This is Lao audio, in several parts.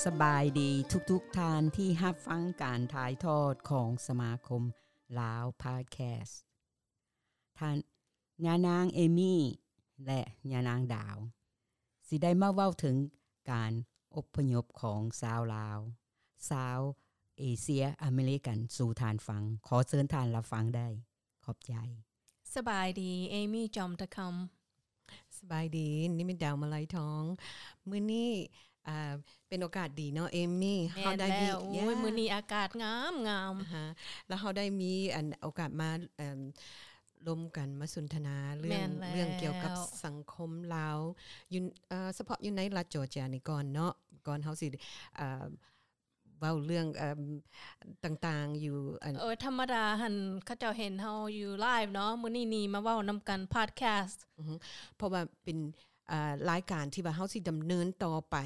ສະບາຍດີທຸກໆທ່ານທີ່ຮັບຟັງການຖ່າຍທອດຂອງສະມາຄົມລາວພອດແຄສ. ທ່ານ ຍານາງເອມີ ແລະ ຍານາງດາວ ຊິໄດ້ມາເວົ້າເຖິງການອົບພະຍົບຂອງຊາວລາວ ຊາວເອເຊຍອາເມລິກັນສູ່ທ່ານຟັງ. ຂໍເຊີນທ່ານຮັບຟັງໄດ້. ຂອບໃຈ. ສະບາຍດີ ເອມີ ຈອມຕະຄຳ. ສະບາຍດີ ນິມິດດາວ ມາໄລທອງ. ມື້ນີ້ ອ່າ ເປັນໂອກາດດີເນາະ ເອມີ ເຮົາໄດ້ມີ ໂອ້ຍ ມື້ນີ້ອາກາດງາມໆ ແລ້ວເຮົາໄດ້ມີອັນ ໂອກາດມາ ເອີ່ມ ລົມກັນມາສົນທະນາເລື່ອງ ເລື່ອງກ່ຽວກັບສັງຄົມລາວ ຢູ່ ເອີ່ ສະເພາະຢູ່ໃນລັດຈໍເຈຍນີ້ກ່ອນເນາະ ກ່ອນເຮົາຊິ ເອີ່ມ ເວົ້າເລື່ອງ ເອີ່ມ ຕ່າງໆຢູ່ ອັນ ເອີ ທຳມະດາຫັ້ນ ເຂົາເຈົ້າເຫັນເຮົາຢູ່ໄລຟ໌ເນາະ ມື້ນີ້ນີ້ມາເວົ້ານຳກັນພອດແຄສ ອືຮຶ ເພາະວ່າເປັນ ເອີ່ ລາຍການທີ່ວ່າເຮົາຊິດຳເນີນຕໍ່ໄປ.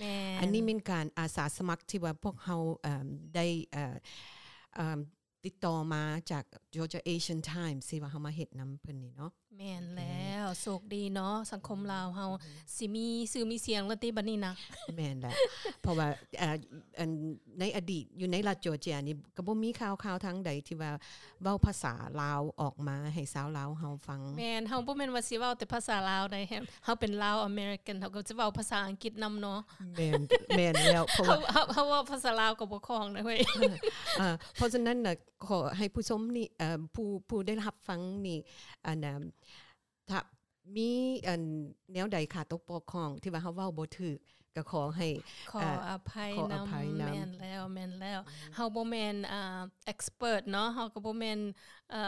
ແມ່ນ. ອັນນີ້ແມ່ນການອາສາສະໝັກທີ່ວ່າພວກເຮົາ ເອີ່ມ ໄດ້ ເອີ່ມ ຕິດຕໍ່ມາຈາກ Georgia Asian Times ທີ່ວ່າເຮົາມາເຮັດນຳເພິ່ນນີ້ເນາະ. ແມ່ນແລ້ວ ໂຊກດີເນາະ ສັງຄົມລາວເຮົາ ອືຮຶ ຊິມີຊື່ມີສຽງແລ້ວຕິບັດນີ້ນະ. ແມ່ນແລ້ວ ເພາະວ່າ ເອີ່ ອັນ ໃນອະດີດຢູ່ໃນລັດຈໍເຈຍນີ້ ກໍບໍ່ມີຂ່າວ ຂ່າວທາງໃດທີ່ວ່າເວົ້າພາສາລາວອອກມາໃຫ້ຊາວລາວເຮົາຟັງ. ແມ່ນ ເຮົາບໍ່ແມ່ນວ່າຊິເວົ້າແຕ່ພາສາລາວໃດ ເຮົາເປັນລາວອາເມລິກັນ ເຮົາກໍຈະເວົ້າພາສາອັງກິດນຳເນາະ. ແມ່ນ ແມ່ນແລ້ວ ເພາະວ່າ ເຮົາ ເຮົາ ເຮົາເວົ້າພາສາລາວກໍບໍ່ຄ່ອງນະເວີຍ. ເອີ ເພາະສະນັ້ນນະ ຂໍໃຫ້ຜູ້ຊົມນີ້ ເອີ່ ຜູ້ ຜູ້ໄດ້ຮັບຟັງນີ້ ອັນ ຖ້າມີອັນແນວໃດຂາຕົກບົກຜ່ອງທີ່ວ່າເຮົາເວົ້າບໍ່ຖືກ ກໍຂໍໃຫ້ ຂໍ ເອີ່ ອະໄພນຳ. ແມ່ນແລ້ວ ແມ່ນແລ້ວ ເຮົາບໍ່ແມ່ນ ອ່າ ເອັກສະເປີດເນາະ ເຮົາກໍບໍ່ແມ່ນ ເອີ່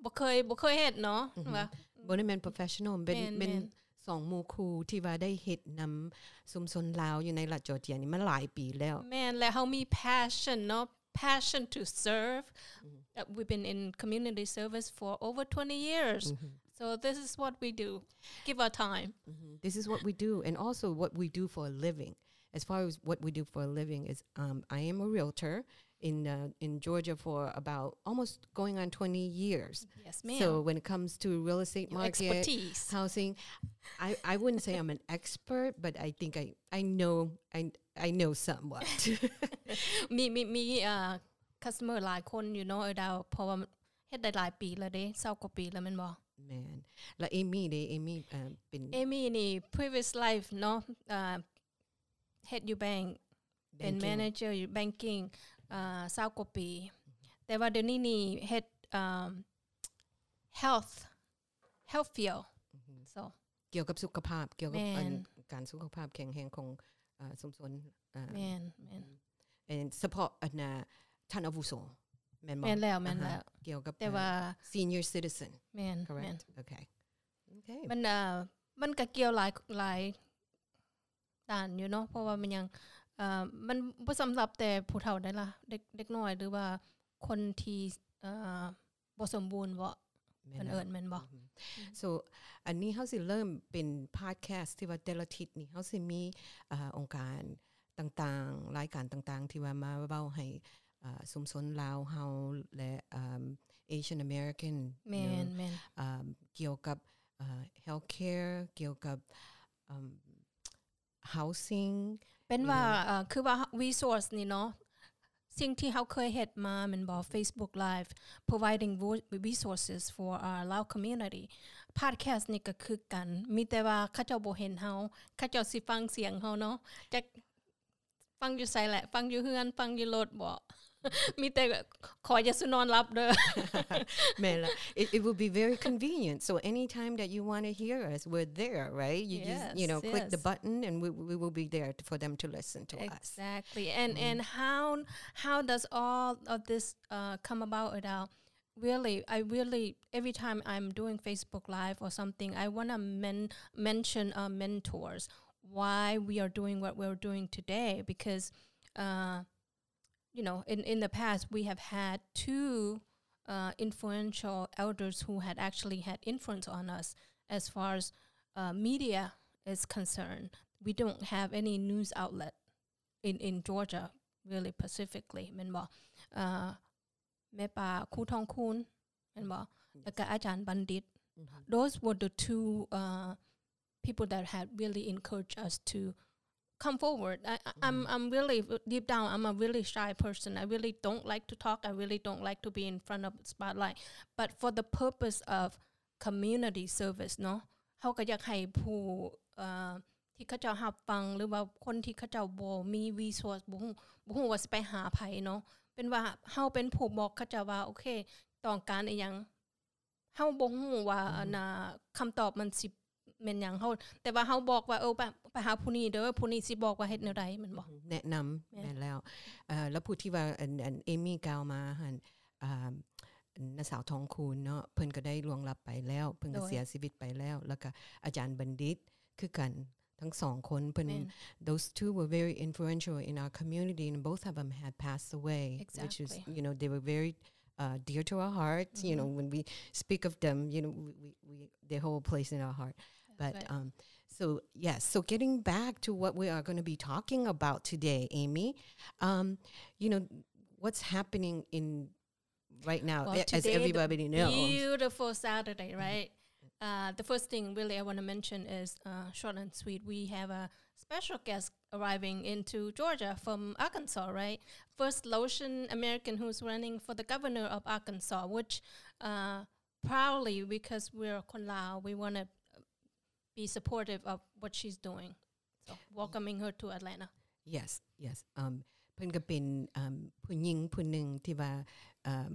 ບໍ່ເຄີຍ ບໍ່ເຄີຍເຮັດເນາະ ວ່າ ບໍ່ໄດ້ແມ່ນໂປຣເຟສຊັນນໍ ເປັນ ແມ່ນ ເປັນສອງໝູ່ຄູ່ທີ່ວ່າໄດ້ເຮັດນຳຊຸມຊົນລາວຢູ່ໃນລັດຈໍເຈຍນີ້ມາຫຼາຍປີແລ້ວ. ແມ່ນ ແລະ ເຮົາມີແພຊຊັນເນາະ passion to serve. Uh, we've been in community service for over twenty years. So this is what we do. Give our time. This is what we do. And also what we do for a living. As far as what we do for a living is, um, I am a realtor in, uh, in Georgia for about almost going on twenty years. Yes, ma'am. So when it comes to real estate market, housing, I, I wouldn't say I'm an expert, but I think I, I know, I, I know somewhat. ມີ ມີ ມີ ເອີ່ customer ຫຼາຍຄົນຢູ່ເນາະ ເອີດາວ ເພາະວ່າເຮັດໄດ້ຫຼາຍປີແລ້ວເດ້ ຊາວກວ່າປີແລ້ວແມ່ນບໍ່? ແມ່ນ. ແລ້ວເອມີເດ້ ເອມີ ເອີ່ ເປັນ ເອມີນີ້ previous life ເນາະ ເອີ່ ເຮັດຢູ່ແບັງ ເປັນ manager ຢູ່ banking ເອີ່ ຊາວກວ່າປີ ແຕ່ວ່າດຽວນີ້ນີ້ເຮັດ ເອີ່ມ health health field. So ກ່ຽວກັບສຸຂະພາບ ກ່ຽວກັບ ແມ່ນ ອັນ ການສຸຂະພາບແຂງແຮງຂອງ ເອີ່ ຊຸມຊົນ ເອີ່ ແມ່ນ ແມ່ນ ສະເພາະອັນ ທ່ານອາວຸໂສ ແມ່ນບໍ່? ແມ່ນແລ້ວ ແມ່ນແລ້ວ ກ່ຽວກັບ ແຕ່ວ່າ senior citizen. ແມ່ນ correct. ໂອເຄ ມັນ ເອີ່ ມັນກະກ່ຽວຫຼາຍ ຫຼາຍດ້ານຢູ່ເນາະ ເພາະວ່າມັນຍັງ ເອີ່ ມັນບໍ່ສຳລັບແຕ່ຜູ້ເຖົ້າໃດລະ ເດັກ ເດັກນ້ອຍ ຫຼືວ່າຄົນທີ່ ເອີ່ ບໍ່ສົມບູນເບາະ ເພິ່ນເອີ້ນແມ່ນບໍ່? So ອັນນີ້ເຮົາຊິເລີ່ມເປັນພອດແຄສທີ່ວ່າແຕ່ລະທິດນີ້ເຮົາຊິມີ ເອີ່ ອົງການຕ່າງໆ ລາຍການຕ່າງໆ ທີ່ວ່າມາເວົ້າໃຫ້ ເອີ່ ຊຸມຊົນລາວເຮົາ ແລະ ເອີ່ມ Asian American ແມ່ນ ແມ່ນ ເອີ່ມ ກ່ຽວກັບ ເອີ່ healthcare ກ່ຽວກັບ ເອີ່ມ housing ເປັນວ່າ ເອີ່ ຄືວ່າ resource ນີ້ເນາະ ສິ່ງທີ່ເຮົາເຄີຍເຮັດມາແມ່ນບໍ່? Facebook Live providing resources for our Lao community. Podcast ນີ້ກໍຄືກັນ ມີແຕ່ວ່າເຂົາເຈົ້າບໍ່ເຫັນເຮົາ ເຂົາເຈົ້າຊິຟັງສຽງເຮົາເນາະ ຈັກຟັງຢູ່ໃສແຫຼະ ຟັງຢູ່ເຮືອນ ຟັງຢູ່ລົດບໍ? ມີແຕ່ຂໍຢ່າສູ່ນອນຫຼັບເດີ. ແມ່ນລະ it, it would be very convenient. So anytime that you want to hear us, we're there, right? You just, you know, click the button and we, we will be there for them to listen to us. Exactly. And, and how, how does all of this, uh, come about, Adele? Really, I really, every time I'm doing Facebook Live or something, I wanna men-, mention our mentors, why we are doing what we're doing today, because, uh, you know, in, in the past, we have had two, uh, influential elders who had actually had influence on us as far as, uh, media is concerned. We don't have any news outlet in, in Georgia, really specifically, ແມ່ນບໍ່? Uh, ແມ່ປ້າ ຄູທອງຄູນ ແມ່ນບໍ່? ແລ້ວກໍອາຈານບັນດິດ. Those were the two, uh, people that had really encouraged us to come forward. I, I- I'm I'm really, deep down, I'm a really shy person. I really don't like to talk. I really don't like to be in front of the spotlight. But for the purpose of community service ເນາະ ເຮົາກໍຢາກໃຫ້ຜູ້ ເອີ່ ທີ່ເຂົາເຈົ້າຮັບຟັງ ຫຼືວ່າຄົນທີ່ເຂົາເຈົ້າບໍ່ມີ resource ບໍ່ຮູ້ ບໍ່ຮູ້ວ່າຊິໄປຫາໃຜເນາະ ເປັນວ່າເຮົາເປັນຜູ້ບອກເຂົາເຈົ້າວ່າ ໂອເຄ ຕ້ອງການອີ່ຫຍັງ ເຮົາບໍ່ຮູ້ວ່າ ອືມ ອັນນ່າ ຄຳຕອບມັນຊິແມ່ນຫຍັງ ເຮົາ ແຕ່ວ່າເຮົາບອກວ່າ ເອີ ໄປ ໄປຫາຜູ້ນີ້ເດີ ຜູ້ນີ້ຊິບອກວ່າເຮັດແນວໃດ ແມ່ນບໍ່? ແນະນຳ ແມ່ນ ແມ່ນແລ້ວ ເອີ ແລ້ວຜູ້ທີ່ວ່າ ອັນ ອັນ ເອມີກ່າວມາຫັ້ນ ອ່າ ນ້າສາວທອງຄູນເນາະ ເພິ່ນກໍໄດ້ລ່ວງລັບໄປແລ້ວ ເພິ່ນກໍ ໂດຍ ເສຍຊີວິດໄປແລ້ວ ແລ້ວກໍອາຈານບັນດິດຄືກັນ ທັງສອງຄົນ ເພິ່ນ ແມ່ນ those two were very influential in our community, and both of them had passed away, which is, Exactly. you know, they were very, uh, dear to our hearts. You know, Mm-hmm. when we speak of them, you know, we, we, we, they hold a place in our heart. That's But, right. um, so, yes, so getting back to what we are gonna be talking about today, Amy, um, you know, what's happening in right now, Well, a-, as today, the everybody knows. beautiful Saturday, Mm-hmm. right? Uh, the first thing really I wanna mention is, uh, short and sweet. We have a special guest arriving into Georgia from Arkansas, right? First Laotian American who's running for the governor of Arkansas, which, uh, proudly, because we're ຄົນລາວ, we wanna be supportive of what she's doing. So, welcoming her to Atlanta. Yes, yes. Um, ເພິ່ນກໍເປັນ um, ຜູ້ຍິງຜູ້ໜຶ່ງທີ່ວ່າ um,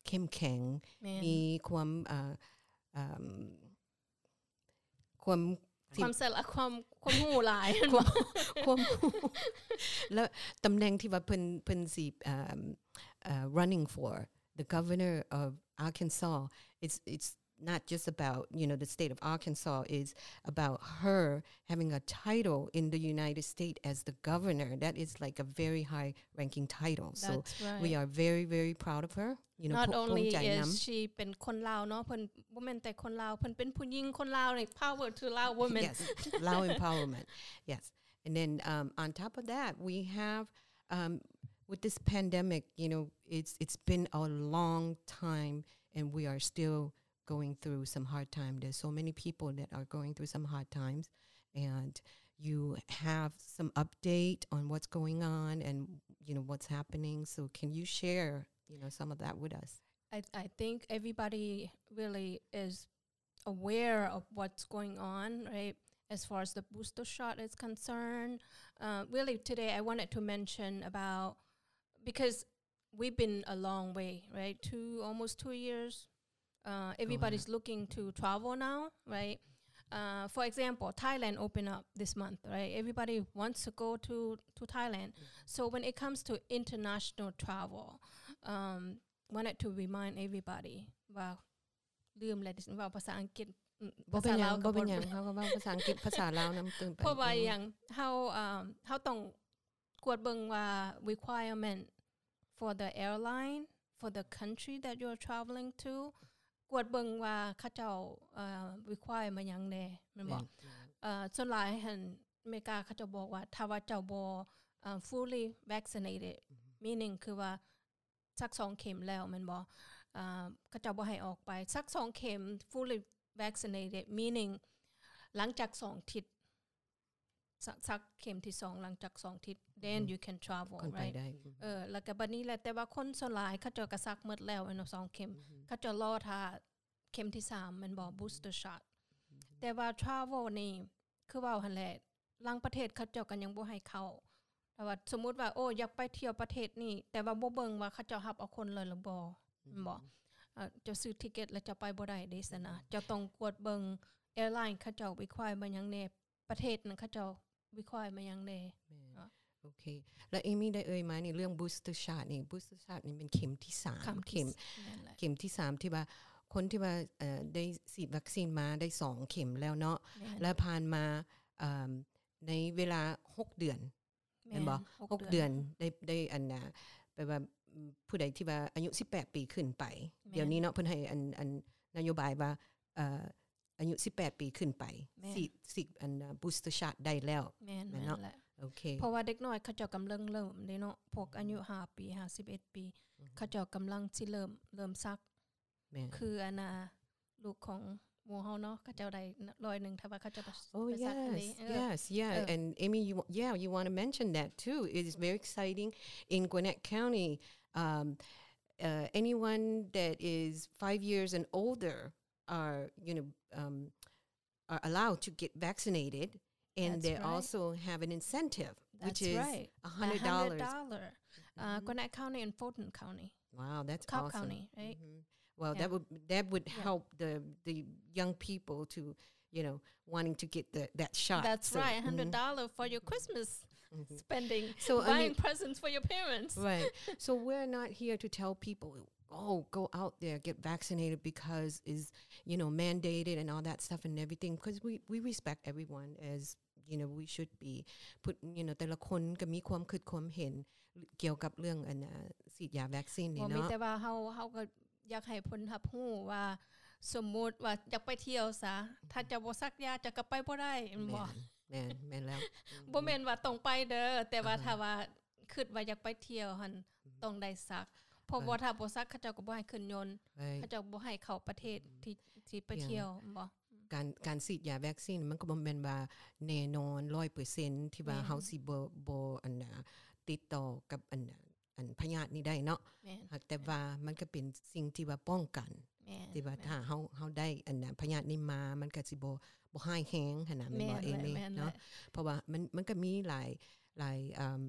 ເຂັ້ມແຂງ ແມ່ນ ມີຄວາມ uh, um, ຄວາມ ຄວາມສະຫຼາດ ຄວາມ ຄວາມຮູ້ຫຼາຍ ຄວາມ ຄວາມຮູ້ ແລ້ວຕຳແໜ່ງທີ່ວ່າເພິ່ນ ເພິ່ນຊິ um, uh, running for the governor of Arkansas, it's, it's not just about, you know, the state of Arkansas, is about her having a title in the United States as the governor. That is, like, a very high ranking title. So That's right. we are very, very proud of her. You know, Not ພູ- only ພູມໃຈນຳ is she ເປັນຄົນລາວເນາະ ເພິ່ນບໍ່ແມ່ນແຕ່ຄົນລາວ ເພິ່ນເປັນຜູ້ຍິງຄົນລາວ like, power to Lao women. Yes, Lao empowerment. Yes. And then, um, on top of that, we have, um, with this pandemic, you know, it's, it's been a long time, and we are still going through some hard time. There's so many people that are going through some hard times, and you have some update on what's going on and, you know, what's happening. So can you share, you know, some of that with us? I, I think everybody really is aware of what's going on, right? As far as the booster shot is concerned. Uh, really, today I wanted to mention about, because we've been a long way, right? Two, almost two years. Uh, everybody's looking to travel now, right? Uh, for example, Thailand opened up this month, right? Everybody wants to go to, to Thailand. So when it comes to international travel, um, wanted to remind everybody ວ່າ ລືມແລ້ວ ເວົ້າພາສາອັງກິດ ອືມ ບໍ່ເປັນຫຍັງ ພາສາລາວກໍບໍ່ເປັນຫຍັງ ເຮົາກໍເວົ້າພາສາອັງກິດ ພາສາລາວນຳຕື່ມໄປ ເພາະວ່າອີ່ຫຍັງ ເຮົາ ເອີ່ມ ເຮົາຕ້ອງກວດເບິ່ງວ່າ requirement for the airline for the country that you're traveling to ກວດເບິ່ງວ່າເຂົາເຈົ້າ ເອີ່ require ມາຫຍັງແດ່ ແມ່ນບໍ່? ແມ່ນ ເອີ່ ສ່ວນຫຼາຍຫັ້ນ ອາເມລິກາເຂົາເຈົ້າບອກວ່າ ຖ້າວ່າເຈົ້າບໍ່ ເອີ່ fully vaccinated ອືຮຶ meaning ຄືວ່າ ສັກສອງເຂັມແລ້ວແມ່ນບໍ່? ເຂົາເຈົ້າບໍ່ໃຫ້ອອກໄປ ສັກສອງເຂັມ fully vaccinated meaning ຫຼັງຈາກສອງທິດ ສັກ ສັກເຂັມທີສອງ ຫຼັງຈາກສອງທິດ then you can travel ຄ່ອຍໄປ right? ໄດ້ ເອີ ແລ້ວກໍບັດນີ້ແຫຼະ ແຕ່ວ່າຄົນສ່ວນຫຼາຍເຂົາເຈົ້າກໍສັກໝົດແລ້ວແມ່ນບໍ່ ສອງເຂັມ ເຂົາເຈົ້າລໍຖ້າເຂັມທີສາມແມ່ນບໍ່? Booster shot ແຕ່ວ່າ travel ນີ້ ຄືເວົ້າຫັ້ນແຫຼະ ລາງປະເທດເຂົາເຈົ້າກໍຍັງບໍ່ໃຫ້ເຂົ້າ ແຕ່ວ່າສົມມຸດວ່າ ໂອ້ ຢາກໄປທ່ຽວປະເທດນີ້ ແຕ່ວ່າບໍ່ເບິ່ງວ່າເຂົາເຈົ້າຮັບເອົາຄົນເລີຍຫຼືບໍ່ ແມ່ນບໍ່? ເຈົ້າຊື້ທິກເກັດແລ້ວເຈົ້າໄປບໍ່ໄດ້ເດ້ຊັ້ນນະ ເຈົ້າຕ້ອງກວດເບິ່ງ airline ເຂົາເຈົ້າ require ມາຫຍັງແດ່ ປະເທດນັ້ນເຂົາເຈົ້າ require ມາຫຍັງແດ່ ແມ່ນ ເນາະ ໂອເຄ ແລ້ວເອມີໄດ້ເອີ່ຍມານີ້ ເລື່ອງ booster shot ນີ້ booster shot ນີ້ແມ່ນເຂັມທີສາມ ເຂັມທີ ເຂັມ ແມ່ນແຫຼະ ເຂັມທີສາມ ທີ່ວ່າ ຄົນທີ່ວ່າ ເອີ່ ໄດ້ສີດວັກຊີນມາໄດ້ສອງເຂັມແລ້ວເນາະ ແມ່ນ ແລ້ວຜ່ານມາ ເອີ່ມ ໃນເວລາຫົກເດືອນ ແມ່ນ ແມ່ນບໍ່? ຫົກ ຫົກເດືອນ ເດືອນ ໄດ້ ໄດ້ ອັນນ່າ ແປວ່າ ຜູ້ໃດທີ່ວ່າອາຍຸສິບແປດປີຂຶ້ນໄປ ແມ່ນ ດຽວນີ້ເນາະ ເພິ່ນໃຫ້ ອັນ ອັນ ນະໂຍບາຍວ່າ ເອີ່ ອາຍຸສິບແປດປີຂຶ້ນໄປ ແມ່ນ ສີດ ສີດ ອັນ booster shot ໄດ້ແລ້ວ ແມ່ນ ແມ່ນເນາະ ແມ່ນແຫຼະ ໂອເຄ ເພາະວ່າເດັກນ້ອຍເຂົາເຈົ້າກຳລັງເລີ່ມເດ້ເນາະ ພວກອາຍຸ ອືຮຶ ຫ້າປີ ຫ້າ ສິບເອັດປີ ອືຮຶ ເຂົາເຈົ້າກຳລັງຊິເລີ່ມ ເລີ່ມສັກ ແມ່ນ ຄືອັນນ່າ ລູກຂອງ ໝູ່ເຮົາເນາະ ເຂົາເຈົ້າໄດ້ຮ້ອຍໜຶ່ງ ຖ້າວ່າເຂົາເຈົ້າໄປ oh, ໄປສັກອັນນີ້ yes, ເອີ yes, yeah, ເອີ and Amy, you, yeah, you want to mention that too. It is very exciting in Gwinnett County. Um, uh, anyone that is five years and older are, you know, um, are allowed to get vaccinated, and That's they right. also have an incentive, which That's is right. a hundred dollars. A hundred dollar. Uh, Mhm. Gwinnett County and Fulton County. Wow, that's Cobb awesome. County, right? Mhm. Well, Yeah. that would, that would Yeah. help the, the young people to, you know, wanting to get the, that shot. That's So, right. mhm. A hundred dollar for your Christmas Mhm. spending, So, I buying mean presents for your parents. Right. So we're not here to tell people, "Oh, go out there, get vaccinated because is, you know, mandated and all that stuff and everything," 'cause we, we respect everyone as, you know, we should be. ຜູ້ you know ແຕ່ລະຄົນກໍມີຄວາມຄິດຄວາມເຫັນກ່ຽວກັບເລື່ອງອັນນ່າ ສີດຢາແວັກຊີນນີ້ ບໍ່ມີ ເນາະ ແຕ່ວ່າເຮົາ ເຮົາກໍຢາກໃຫ້ເພິ່ນຮັບຮູ້ວ່າ ສົມມຸດວ່າຢາກໄປທ່ຽວຊະ ຖ້າເຈົ້າບໍ່ສັກຢາເຈົ້າກໍໄປບໍ່ໄດ້ ແມ່ນບໍ່? ແມ່ນ ແມ່ນ ແມ່ນແລ້ວ ບໍ່ແມ່ນວ່າຕ້ອງໄປເດີ ແຕ່ວ່າ ອ່າຮະ ຖ້າວ່າຄິດວ່າຢາກໄປທ່ຽວຫັ້ນ ອືມ ຕ້ອງໄດ້ສັກ ເພາະວ່າ right. ຖ້າບໍ່ສັກ ເຂົາເຈົ້າກໍບໍ່ໃຫ້ຂຶ້ນຍົນ right. ເຂົາເຈົ້າບໍ່ໃຫ້ເຂົ້າປະເທດ ອືມ ທີ່ ທີ່ໄປ yeah. ທ່ຽວ ແມ່ນບໍ່? ອືມ ການ ການສີດຢາແວັກຊີນມັນກໍບໍ່ແມ່ນວ່າແນ່ນອນຮ້ອຍເປີເຊັນ ທີ່ວ່າ ແມ່ນ ເຮົາຊິບໍ່ ບໍ່ ອັນນ່າ ຕິດຕໍ່ກັບ ອັນນ່າ ອັນພະຍາດນີ້ໄດ້ເນາະ ແມ່ນ ຫາກແຕ່ວ່າມັນກໍເປັນສິ່ງທີ່ວ່າປ້ອງກັນ ແມ່ນ ທີ່ວ່າ ແມ່ນ ຖ້າເຮົາ ເຮົາໄດ້ ອັນນ່າ ພະຍາດນີ້ມາ ມັນກໍຊິບໍ່ ບໍ່ຮ້າຍແຮງຫັ້ນນະ ແມ່ນບໍ່ ແມ່ນ ເອມີ້ ແມ່ນ ເນາະ ແມ່ນ ເພາະວ່າມັນ ມັນກໍມີຫຼາຍ ຫຼາຍ ເອີ່ມ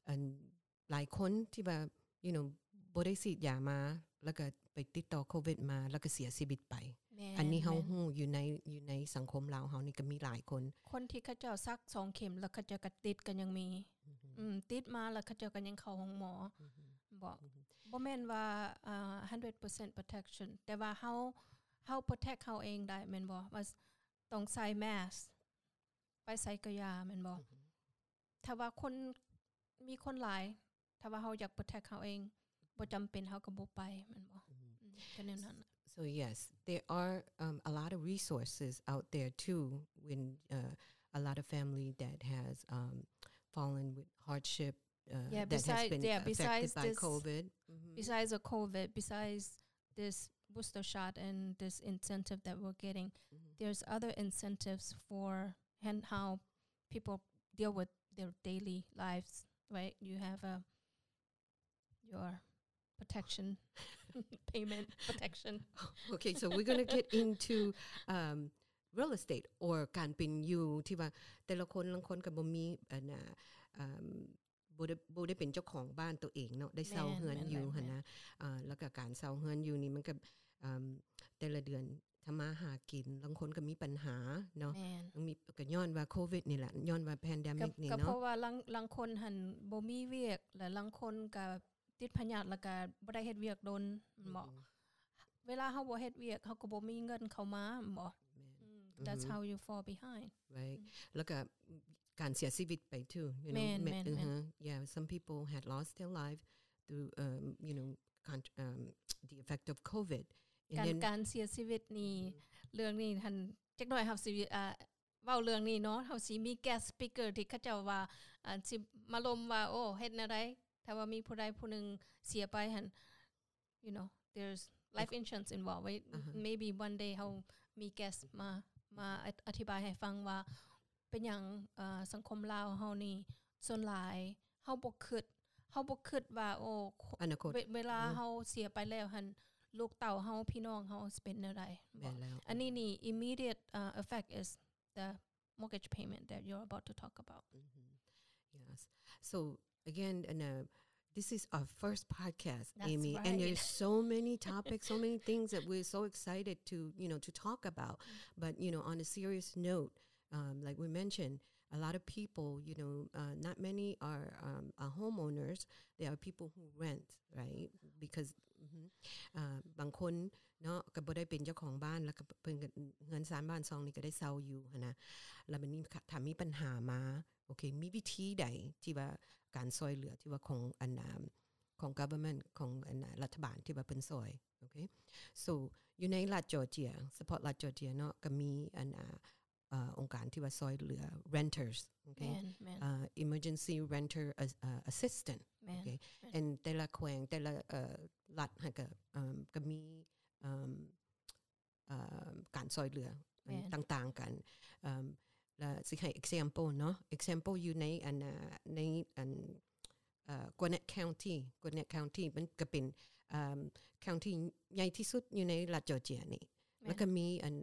ອັນ ຫຼາຍຄົນທີ່ວ່າ you know ບໍ່ໄດ້ສີດຢາມາ ແລ້ວກໍໄປຕິດຕໍ່ໂຄວິດມາ ແລ້ວກໍເສຍຊີວິດໄປ ແມ່ນ ອັນນີ້ເຮົາ ແມ່ນ ຮູ້ຢູ່ໃນ ຢູ່ໃນສັງຄົມລາວເຮົານີ້ກໍມີຫຼາຍຄົນ ຄົນທີ່ເຂົາເຈົ້າສັກສອງເຂັມ ແລ້ວເຂົາເຈົ້າກໍຕິດກໍຍັງມີ ອືມ ອືມ ຕິດມາແລ້ວເຂົາເຈົ້າກໍຍັງເຂົ້າໂຮງໝໍ ອືມ ບໍ່ ອືມ ບໍ່ແມ່ນວ່າ ເອີ່ hundred percent protection ແຕ່ວ່າເຮົາ ເຮົາ protect ເຮົາເອງໄດ້ແມ່ນບໍ່ ວ່າຕ້ອງໃສ່ mask ໄປໃສກໍຢ່າແມ່ນບໍ່ ອືມ ຖ້າວ່າຄົນ ມີຄົນຫຼາຍ ຖ້າວ່າເຮົາຢາກ protect ເຮົາເອງ ບໍ່ຈຳເປັນເຮົາກໍບໍ່ໄປແມ່ນບໍ່ ອືມ ອືມ ກໍແນວນັ້ນ So yes, there are, um, a lot of resources out there too when, uh, a lot of family that has, um, fallen with hardship, uh, yeah, that has besides, been yeah, affected besides by this, covid. Mm-hmm. Besides the covid, besides this booster shot and this incentive that we're getting, mm-hmm. there's other incentives for and how people deal with their daily lives, right? You have a your protection payment protection. Okay, so we're gonna get into, um, real estate or ການເປັນຢູ່ ທີ່ວ່າແຕ່ລະຄົນ ລາງຄົນກໍບໍ່ມີ ອັນນ່າ ເອີ່ມ ບໍ່ໄດ້ ບໍ່ໄດ້ເປັນເຈົ້າຂອງບ້ານໂຕເອງເນາະ ໄດ້ເຊົ່າເຮືອນຢູ່ຫັ້ນນະ ແມ່ນ ແມ່ນ ແມ່ນ ອ່າ ແລ້ວກໍການເຊົ່າເຮືອນຢູ່ນີ້ມັນກໍ ເອີ່ມ ແຕ່ລະເດືອນ ທຳມາຫາກິນ ລາງຄົນກໍມີບັນຫາເນາະ ແມ່ນ ມີ ກໍຍ້ອນວ່າໂຄວິດນີ້ແຫຼະ ຍ້ອນວ່າ pandemic ນີ້ເນາະ ກໍເພາະວ່າລາງ ລາງຄົນຫັ້ນບໍ່ມີວຽກ ແລະ ລາງຄົນກໍຕິດພະຍາດ ແລ້ວກໍບໍ່ໄດ້ເຮັດວຽກດົນ ແມ່ນບໍ່ ອືມ ເວລາເຮົາບໍ່ເຮັດວຽກ ເຮົາກໍບໍ່ມີເງິນເຂົ້າມາ ແມ່ນບໍ່ ແມ່ນ ອືມ that's how you fall behind right ອືມ ແລ້ວກໍການເສຍຊີວິດໄປ too, you know ແມ່ນ ແມ່ນ ແມ່ນ yeah, some people had lost their life through, um, you know, con- um, the effect of covid. ການ ການເສຍຊີວິດນີ້ ເລື່ອງນີ້ຫັ້ນ ຈັກໜ້ອຍເຮົາຊິ ອ່າ ເວົ້າເລື່ອງນີ້ເນາະ ເຮົາຊິມີ guest speaker ທີ່ເຂົາເຈົ້າວ່າ ອ່າ ຊິມາລົມວ່າ ໂອ້ ເຮັດແນວໃດ ຖ້າວ່າມີຜູ້ໃດຜູ້ໜຶ່ງເສຍໄປຫັ້ນ you know, there's life insurance involved, right? Maybe one day ເຮົາມີ guest ມາ ມາອະທິບາຍໃຫ້ຟັງວ່າເປັນຫຍັງ ເອີ່ ສັງຄົມລາວເຮົານີ້ ສ່ວນຫຼາຍເຮົາບໍ່ຄິດ ເຮົາບໍ່ຄິດວ່າ ໂອ້ ອະນາຄົດ ເວລາເຮົາເສຍໄປແລ້ວຫັ້ນ ລູກເຕົ້າເຮົາ ພີ່ນ້ອງເຮົາຊິເປັນແນວໃດ ແມ່ນແລ້ວ ອັນນີ້ນີ້ immediate, uh, effect is the mortgage payment that you're about to talk about. Mm-hmm. Yes. So again, and, uh, this is our first podcast, Amy, and there's so many topics, so many things that we're so excited to, you know, to talk about. But, you know, on a serious note, um, like we mentioned, a lot of people, you know, uh, not many are, um, are homeowners. There are people who rent, right? Because, mm-hmm, uh, ບາງຄົນ ເນາະ ກໍບໍ່ໄດ້ເປັນເຈົ້າຂອງບ້ານ ແລ້ວກໍເພິ່ນກໍເຮືອນຊານບ້ານຊ່ອງນີ້ກໍໄດ້ເຊົ່າຢູ່ຫັ້ນນະ ແລ້ວບັດນີ້ຖ້າມີບັນຫາມາ ໂອເຄ ມີວິທີໃດທີ່ວ່າການຊ່ອຍເຫຼືອທີ່ວ່າຂອງອັນນ່າ ຂອງ government ຂອງອັນນ່າ ລັດຖະບານທີ່ວ່າເພິ່ນຊ່ອຍ ໂອເຄ so ຢູ່ໃນລັດ Georgia ສະເພາະລັດ Georgia ເນາະ ກໍມີອັນນ່າ ເອີ່ ອົງການທີ່ວ່າຊ່ອຍເຫຼືອ renters ໂອເຄ ແມ່ນ ເອີ່ emergency renter as- ເອີ່ assistant ແມ່ນ ໂອເຄ ແມ່ນ and ແຕ່ລະແຂວງ ແຕ່ລະ ເອີ່ ລັດຫັ້ນກໍ ເອີ່ມ ກໍມີ ເອີ່ມ ເອີ່ມ ການຊ່ອຍເຫຼືອ ແມ່ນ ຕ່າງໆກັນ. ເອີ່ມ ລະຊິໃຫ້ example ເນາະ example ຢູ່ໃນອັນ ໃນອັນ ເອີ່ Gwinnett County Gwinnett County ມັນກະເປັນ ເອີ່ມ county ໃຫຍ່ທີ່ສຸດຢູ່ໃນລັດ Georgia ນີ້ ແມ່ນ ແລ້ວກະມີອັນ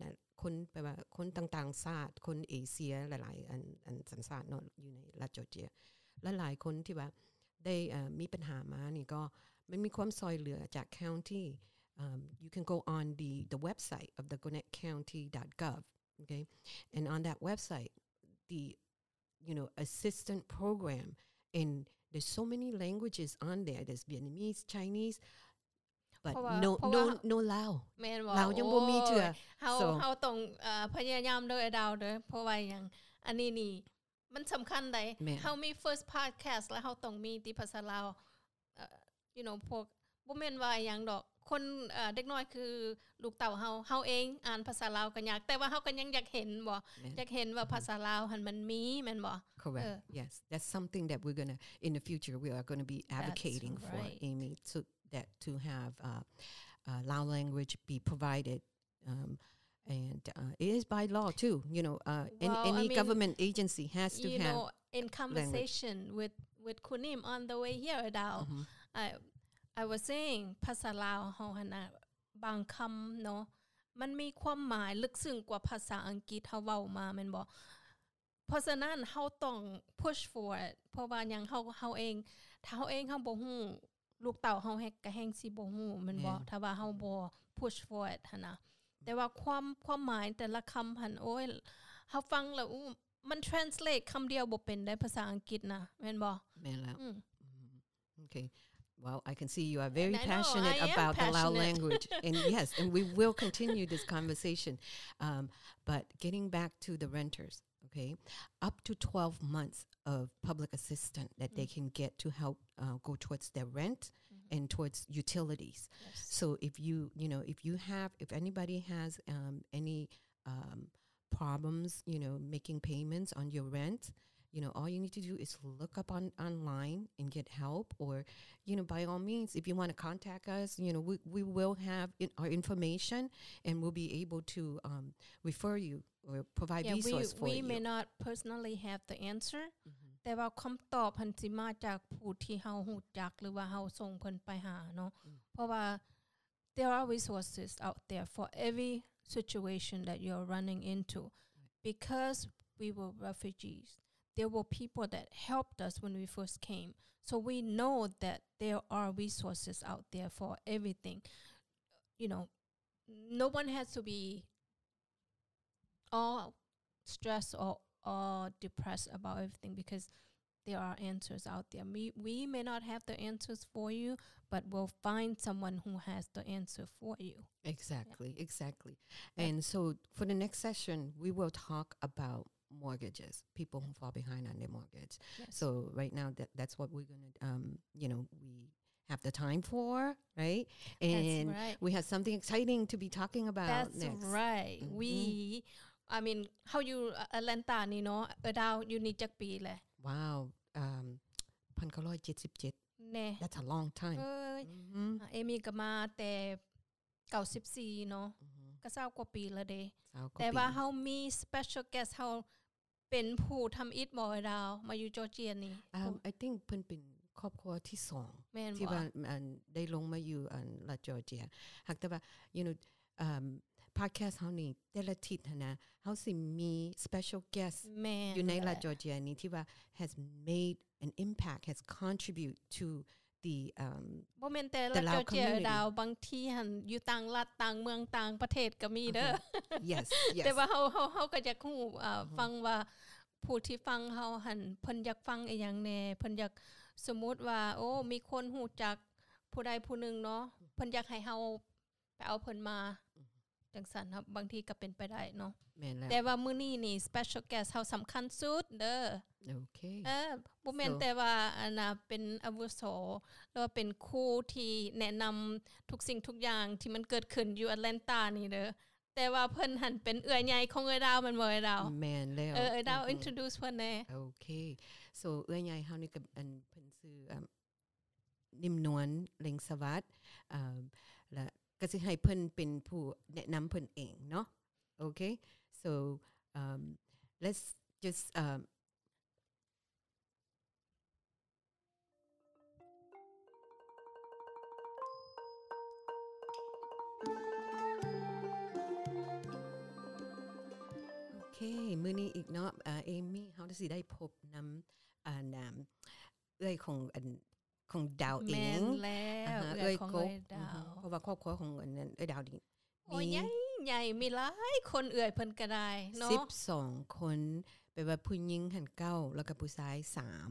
ຄົນ ແປວ່າຄົນຕ່າງໆຊາດ ຄົນເອເຊຍຫຼາຍໆ ອັນ ອັນສັນຊາດເນາະ ຢູ່ໃນລັດ Georgia ຫຼາຍໆຄົນທີ່ວ່າໄດ້ ເອີ່ ມີບັນຫາມານີ້ ກໍມັນມີຄວາມຊ່ອຍເຫຼືອຈາກ county. Um, you can go on the the website of the Gwinnett County dot gov, okay? And on that website, the, you know, assistant program, and there's so many languages on there. There's Vietnamese, Chinese, but ເພາະວ່າ no ເພາະວ່າ no no Lao. ແມ່ນບໍ່? ລາວຍັງບໍ່ມີເທື່ອ. ໂອ້ຍ ເຮົາ so ເຮົາຕ້ອງ ເອີ່ ພະຍາຍາມເດີ ອ້າຍດາວເດີ. ເພາະວ່າຫຍັງ? ອັນນີ້ນີ້ ມັນສຳຄັນໃດ໋. ແມ່ນ ເຮົາມີ first podcast ແລ້ວເຮົາຕ້ອງມີຕິພາສາລາວ. ເອີ່ you know ພວກ ບໍ່ແມ່ນວ່າຫຍັງດອກ ຄົນ ເອີ່ ເດັກນ້ອຍຄືລູກເຕົ້າເຮົາ ເຮົາເອງອ່ານພາສາລາວກໍຍາກ ແຕ່ວ່າເຮົາກໍຍັງຢາກເຫັນບໍ່? ແມ່ນ ຢາກເຫັນວ່າພາສາລາວຫັ້ນມັນມີ ແມ່ນບໍ່? Correct. ເອີ Yes, that's something that we're gonna, in the future, we are gonna be advocating for, Amy, so that to have, uh, uh, Lao language be provided, um, and, uh, it is by law too, you know, uh, an- Well, I any mean, government agency has to you have know, in language. Conversation with with Kunim on the way here, ອ້າຍດາວ Mhm. I I was saying ພາສາລາວເຮົາຫັ້ນນະ ບາງຄຳເນາະ ມັນມີຄວາມໝາຍເລິກເຊິ່ງກວ່າພາສາອັງກິດເຮົາເວົ້າມາ ແມ່ນບໍ່? ເພາະສະນັ້ນເຮົາຕ້ອງ push forward ເພາະວ່າຫຍັງ? ເຮົາ ເຮົາເອງ ຖ້າເຮົາເອງເຮົາບໍ່ຮູ້ ລູກເຕົ້າເຮົາແຮງ ກະແຮງຊິບໍ່ຮູ້ ແມ່ນບໍ່? ແມ່ນ ຖ້າວ່າເຮົາບໍ່ push forward ຫັ້ນນະ. ແຕ່ວ່າຄວາມ ຄວາມໝາຍແຕ່ລະຄຳຫັ້ນ ໂອ້ຍ ເຮົາຟັງແລ້ວ ອູ້ ມັນ translate ຄຳດຽວບໍ່ເປັນໄດ໋ ພາສາອັງກິດນະ ແມ່ນບໍ່? ແມ່ນແລ້ວ ອືມ ອືມ Okay. Well, I can see you are very And I know, passionate I am about the Lao passionate. language. And yes, and we will continue this conversation. Um, but getting back to the renters, okay? Up to twelve months of public assistance that they Mm. can get to help, uh, go towards their rent Mm-hmm. and towards utilities. Yes. So if you, you know, if you have, if anybody has, um, any, um, problems, you know, making payments on your rent, you know, all you need to do is look up on, online and get help, or, you know, by all means, if you wanna contact us, you know, we, we will have in, our information and we'll be able to, um, refer you or provide Yeah, we, resource for we you. may not personally have the answer, Mhm. ແຕ່ວ່າຄຳຕອບຫັ້ນຊິມາຈາກຜູ້ທີ່ເຮົາຮູ້ຈັກ ຫຼືວ່າເຮົາສົ່ງເພິ່ນໄປຫາເນາະ ອືມ ເພາະວ່າ there are resources out there for every situation that you're running into. Because we were refugees, there were people that helped us when we first came. So we know that there are resources out there for everything. You know, no one has to be all stressed or, or depressed about everything because there are answers out there. We, we may not have the answers for you, but we'll find someone who has the answer for you. Exactly, Yeah. exactly. Yeah. And so for the next session, we will talk about mortgages, people who fall behind on their mortgage. Yes. So right now, that, that's what we're gonna, um, you know, we have the time for, right? And That's right. we have something exciting to be talking about That's next. right. Mm-hmm. We, I mean, ເຮົາຢູ່ Atlanta ນີ້ເນາະ ເອີດາວ ຢູ່ນີ້ຈັກປີແລ້ວ? Wow, um, ພັນເກົ້າຮ້ອຍເຈັດສິບເຈັດ ແນ່ That's a long time. ເອີຍ Mm-hmm. ເອມີກໍມາແຕ່ເກົ້າສິບສີ່ເນາະ Mm-hmm. ກໍຊາວກວ່າປີແລ້ວເດ້ ຊາວກວ່າ ແຕ່ວ່າ ປີ ເຮົາມີ special guest ເຮົາ ເປັນຜູ້ທຳອິດບໍ່ ອ້າຍດາວ ມາຢູ່ Georgia ນີ້? Um, I think ເພິ່ນເປັນຄອບຄົວທີສອງ ແມ່ນ ທີ່ ບໍ່ ວ່າ ອັນ ໄດ້ລົງມາຢູ່ ອັນ ລັດ Georgia. ຫາກແຕ່ວ່າ you know, um, podcast ເຮົານີ້ ແຕ່ລະທິດຫັ້ນນະ ເຮົາຊິມີ special guest ແມ່ນ ຢູ່ໃນລັດ ແຫຼະ Georgia ນີ້ ທີ່ວ່າ has made an impact, has contribute to the, um, ບໍ່ແມ່ນແຕ່ລັດ the Lao Georgia community. ດາວ ບາງທີຫັ້ນຢູ່ຕ່າງລັດ ຕ່າງເມືອງ ຕ່າງປະເທດກໍມີເດີ. Uh-huh. Yes, yes. ແຕ່ວ່າເຮົາ ເຮົາ ເຮົາກໍຢາກຮູ້ ເອີ ອືຮຶ ຟັງວ່າຜູ້ທີ່ຟັງເຮົາຫັ້ນ ເພິ່ນຢາກຟັງອີ່ຫຍັງແດ່ ເພິ່ນຢາກ ສົມມຸດວ່າ ໂອ້ ມີຄົນຮູ້ຈັກຜູ້ໃດຜູ້ໜຶ່ງເນາະ ເພິ່ນຢາກໃຫ້ເຮົາ ໄປເອົາເພິ່ນມາ ອືມ ຈັ່ງຊັ້ນ ເຮົາ ບາງທີກໍເປັນໄປໄດ້ເນາະ. ແມ່ນແລ້ວ ແຕ່ວ່າມື້ນີ້ນີ້ special guest ເຮົາສຳຄັນສຸດເດີ. ໂອເຄ ເອີ ບໍ່ແມ່ນ so ແຕ່ວ່າ ອັນນ່າ ເປັນອາວຸໂສ ຫຼືວ່າເປັນຄູທີ່ແນະນຳທຸກສິ່ງທຸກຢ່າງທີ່ມັນເກີດຂຶ້ນຢູ່ Atlanta ນີ້ເດີ ແຕ່ວ່າເພິ່ນຫັ້ນເປັນເອື້ອຍໃຫຍ່ຂອງເອື້ອຍດາວ ແມ່ນບໍ່ ເອື້ອຍດາວ? ແມ່ນແລ້ວ ເອີ ເອື້ອຍດາວ ອືຮຶ introduce ເພິ່ນແດ່. ໂອເຄ so ເອື້ອຍໃຫຍ່ເຮົານີ້ກໍ ອັນ ເພິ່ນຊື່ ອ່າ ນິ້ມນວນ ເລັງສະຫວັດ ອ່າ ແລະ ກໍຊິໃຫ້ເພິ່ນເປັນຜູ້ແນະນຳເພິ່ນເອງເນາະ. Okay, so um, let's just um, ໂອເຄ ມື້ນີ້ອີກເນາະ ເອີ ເອມີ້ ເຮົາຊິໄດ້ພົບນຳ ອັນ ເອື້ອຍຂອງ ອັນ ຂອງດາວເອງ. ແມ່ນແລ້ວ ເອື້ອຍຂອງເອື້ອຍດາວ ເພາະວ່າຄອບຄົວຂອງ ອັນ ເອື້ອຍດາວນີ້ ໂອ້ຍ ມີ ໃຫຍ່ ໃຫຍ່ ມີຫຼາຍຄົນ ເອື້ອຍເພິ່ນກໍໄດ້ເນາະ ສິບສອງຄົນ ແປວ່າຜູ້ຍິງຫັ້ນເກົ້າ ແລ້ວກໍຜູ້ຊາຍສາມ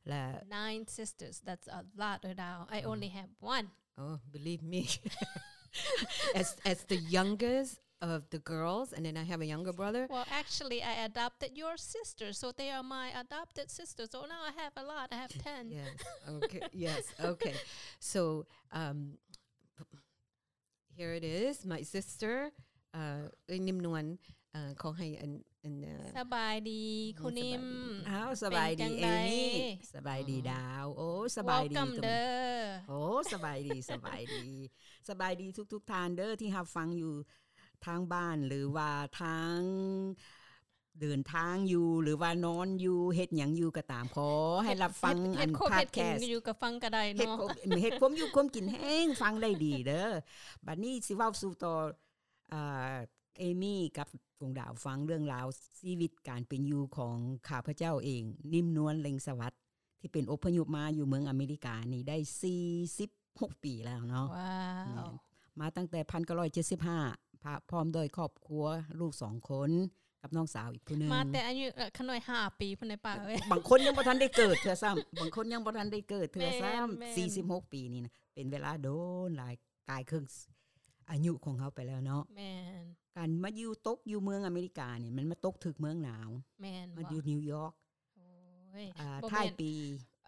ແລະ Nine sisters, that's a lot, ເອື້ອຍດາວ. I only have one. Oh, believe me. As, as the youngest of the girls, and then I have a younger brother. Well, actually, I adopted your sister, so they are my adopted sisters. So now I have a lot. I have ten. Yes. Okay. Yes. Okay. So, um, here it is, my sister. ເອີ ເອື້ອຍນິມນວນ ເອີ ຂໍໃຫ້ອັນ ອັນ ເອີ ສະບາຍດີ ຄຸນນິມ. ອ້າວ ສະບາຍດີ ເອມີ້. ສະບາຍດີດາວ. ໂອ້ ສະບາຍດີເດີ. ໂອ້ ສະບາຍດີ ສະບາຍດີ ສະບາຍດີທຸກໆທ່ານເດີ ທີ່ຮັບຟັງຢູ່ທາງບ້ານ ຫຼືວ່າທາງ ເດີນທາງຢູ່ ຫຼືວ່ານອນຢູ່ ເຮັດຫຍັງຢູ່ກໍຕາມ ຂໍໃຫ້ຮັບຟັງ ເຮັດ ອັນ ເຮັດຄວາມ ເຮັດກິນ podcast ຢູ່ກໍຟັງກໍໄດ້ເນາະ ເຮັດຄວາມ ເຮັດຄວາມຢູ່ຄວາມກິນແຮງຟັງໄດ້ດີເດີ. ບັດນີ້ຊິເວົ້າສູ່ຕໍ່ ອ່າ ເອມີ້ກັບດວງດາວຟັງເລື່ອງລາວຊີວິດການເປັນຢູ່ຂອງຂ້າພະເຈົ້າເອງ ນິມນວນ ເລັງສະຫວັດ ທີ່ເປັນອົບພະຍົບມາຢູ່ເມືອງອາເມລິການີ້ໄດ້ສີ່ສິບຫົກປີແລ້ວເນາະ. ວ້າວ ແມ່ນ ມາຕັ້ງແຕ່ພັນເກົ້າຮ້ອຍເຈັດສິບຫ້າ ພະ ພ້ອມດ້ວຍຄອບຄົວ ລູກສອງຄົນ ກັບນ້ອງສາວອີກຜູ້ໜຶ່ງ. ມາແຕ່ອາຍຸ ເອີ ຂະນ້ອຍຫ້າປີພຸ້ນໃດປ້າເອີຍ. ບາງຄົນຍັງບໍ່ທັນໄດ້ເກີດເທື່ອຊ້ຳ ບາງຄົນຍັງບໍ່ທັນໄດ້ເກີດເທື່ອຊ້ຳ. ແມ່ນໆ ສີ່ສິບຫົກປີນີ້ນະ ເປັນເວລາດົນຫຼາຍ ກາຍເຄິ່ງອາຍຸຂອງເຮົາໄປແລ້ວເນາະ. ແມ່ນ ການມາຢູ່ ຕົກຢູ່ເມືອງອາເມລິການີ້ ມັນມາຕົກຖືກເມືອງໜາວ. ແມ່ນ ມາຢູ່ນິວຢອກ. ໂອ້ຍ ອ່າ ບໍ່ແມ່ນ ທ້າຍປີ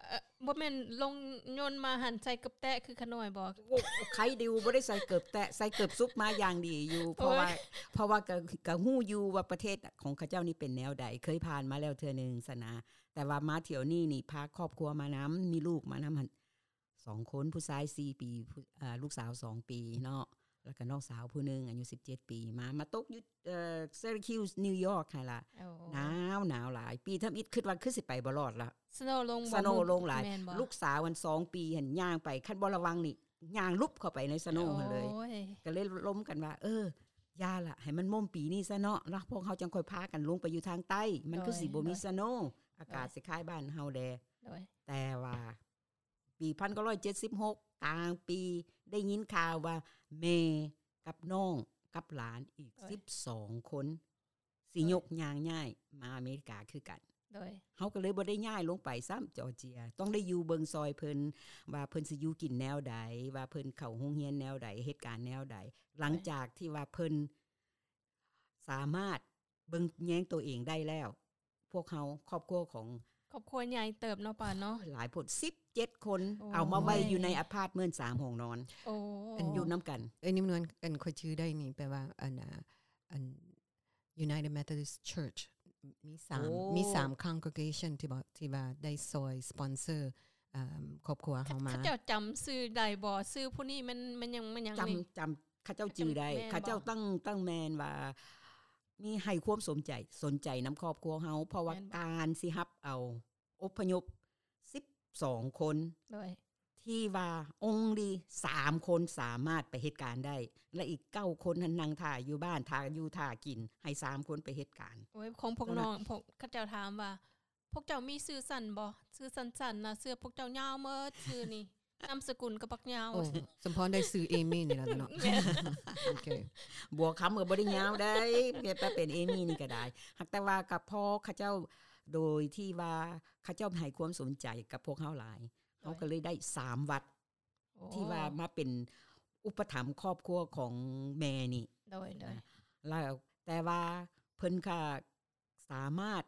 ເອີ ບໍ່ແມ່ນລົງຍົນມາຫັ້ນໃສ່ເກີບແຕະຄືຂະນ້ອຍບໍ? ໂອ້ ໄຄດິວ ບໍ່ໄດ້ໃສ່ເກີບແຕະ ໃສ່ເກີບສຸບມາຢ່າງດີຢູ່. ໂອ້ຍ ເພາະວ່າ ເພາະວ່າກະ ກະຮູ້ຢູ່ວ່າປະເທດຂອງເຂົາເຈົ້ານີ້ເປັນແນວໃດ ເຄີຍຜ່ານມາແລ້ວເທື່ອໜຶ່ງຊັ້ນນະ. ແຕ່ວ່າມາຖ້ຽວນີ້ນີ້ ພາຄອບຄົວມານຳ ມີລູກມານຳຫັ້ນ ສອງຄົນ ຜູ້ຊາຍສີ່ປີ ຜູ້ ເອີ ລູກສາວສອງປີເນາະ ແລ້ວກໍນ້ອງສາວຜູ້ໜຶ່ງອາຍຸສິບເຈັດປີ ມາ ມາຕົກຢູ່ ເອີ Syracuse New York ຫັ້ນລະ. ໂອ້ ໜາວ ໜາວຫຼາຍ ປີທຳອິດຄິດວ່າຄືຊິໄປບໍ່ລອດລະ snow ລົງ snow ລົງຫຼາຍ. ແມ່ນບໍ່? ລູກສາວອັນສອງປີຫັ້ນຍ່າງໄປ ຄັນບໍ່ລະວັງນີ້ຍ່າງຫຼຸບເຂົ້າໄປໃນ snow ຫັ້ນເລີຍ. ໂອ້ຍ ກໍເລີຍລົມກັນວ່າ ເອີ ຢ່າລະ ໃຫ້ມັນມົ້ມປີນີ້ຊະເນາະ ແລ້ວພວກເຮົາຈັ່ງຄ່ອຍພາກັນລົງໄປຢູ່ທາງໃຕ້ ມັນຄືຊິບໍ່ມີ ໂດຍ snow ອາກາດ ໂດຍ ຊິຄ້າຍບ້ານເຮົາແດ່. ໂດຍ ແຕ່ວ່າ ປີພັນເກົ້າຮ້ອຍເຈັດສິບຫົກ ກາງປີ ໄດ້ຍິນຂ່າວວ່າແມ່ກັບນ້ອງກັບຫຼານອີກ ໂດຍ ສິບສອງຄົນ ຊິ ໂດຍ ຍົກຍ່າງຍ້າຍມາອາເມລິກາຄືກັນ. ໂດຍ ເຮົາກໍເລີຍບໍ່ໄດ້ຍ້າຍລົງໄປຊ້ຳ Georgia ຕ້ອງໄດ້ຢູ່ເບິ່ງຊ່ອຍເພິ່ນ ວ່າເພິ່ນຊິຢູ່ກິນແນວໃດ ວ່າເພິ່ນເຂົ້າໂຮງຮຽນແນວໃດ ເຮັດການແນວໃດ. ໂດຍ ຫຼັງຈາກທີ່ວ່າເພິ່ນສາມາດ ເບິ່ງແຍງໂຕເອງໄດ້ແລ້ວ ພວກເຮົາ ຄອບຄົວຂອງ ຄອບຄົວໃຫຍ່ເຕີບເນາະປ້າເນາະ ຫຼາຍໂພດ ສິບເຈັດຄົນ. ໂອ້ຍ ເອົາມາໄວ້ຢູ່ໃນອາພາດເມັນ ສາມຫ້ອງນອນ. ໂອ້ ອັນ ຢູ່ນຳກັນ. ເອີຍ ນິມນວນ ອັນ ຂ້ອຍຈື່ໄດ້ນີ້ ແປວ່າ ອັນ ອັນ United Methodist Church ມີສາມ ໂອ້ ມີສາມ congregation ທີ່ວ່າ ທີ່ວ່າໄດ້ຊ່ອຍ sponsor ອ່າ ຄອບຄົວເຮົາມາ. ເຂົາເຈົ້າຈຳຊື່ໄດ້ບໍ່? ຊື່ຜູ້ນີ້ແມ່ນ ແມ່ນຫຍັງ ແມ່ນຫຍັງ ຈຳ ນີ້ ຈຳ ເຂົາເຈົ້າຈື່ໄດ້. ແມ່ນບໍ່? ເຂົາເຈົ້າຕັ້ງ ຕັ້ງແມ່ນວ່າມີໃຫ້ຄວາມສົນໃຈ ສົນໃຈນຳຄອບຄົວເຮົາ ເພາະວ່າ ແມ່ນບໍ່? ການຊິຮັບເອົາອົບພະຍົບສິບສອງຄົນ ໂດຍ ທີ່ວ່າ only ສາມຄົນສາມາດໄປເຮັດການໄດ້ ແລະ ອີກເກົ້າຄົນຫັ້ນນັ່ງຖ້າຢູ່ບ້ານ ຖ້າຢູ່ຖ້າກິນ ໃຫ້ສາມຄົນໄປເຮັດການ. ໂອ້ຍ ຂອງພວກນ້ອງ ພວກເຂົາເຈົ້າຖາມວ່າ ພວກເຈົ້າມີຊື່ສັ້ນບໍ່? ຊື່ສັ້ນໆນະ ຊື່ພວກເຈົ້າຍາວໝົດ ຊື່ນີ້ ນາມສະກຸນກໍບັກຍາວ. ໂອ້ ສົມພອນໄດ້ຊື່ເອມີ້ນີ້ແຫຼະເນາະ. ແມ່ນ ໂອເຄ ບົວຄຳກໍບໍ່ໄດ້ຍາວໃດ ແຕ່ເປັນເອມີ້ນີ້ກໍໄດ້. ຫາກແຕ່ວ່າກໍພໍເຂົາເຈົ້າ ໂດຍທີ່ວ່າເຂົາເຈົ້າໃຫ້ຄວາມສົນໃຈກັບພວກເຮົາຫຼາຍ ໂດຍ ເຮົາກໍເລີຍໄດ້ສາມວັດ ໂອ້ ທີ່ວ່າມາເປັນອຸປະຖຳຄອບຄົວຂອງແມ່ນີ້. ໂດຍ ໂດຍ ແລ້ວ ແຕ່ວ່າເພິ່ນກໍ ສາມາດ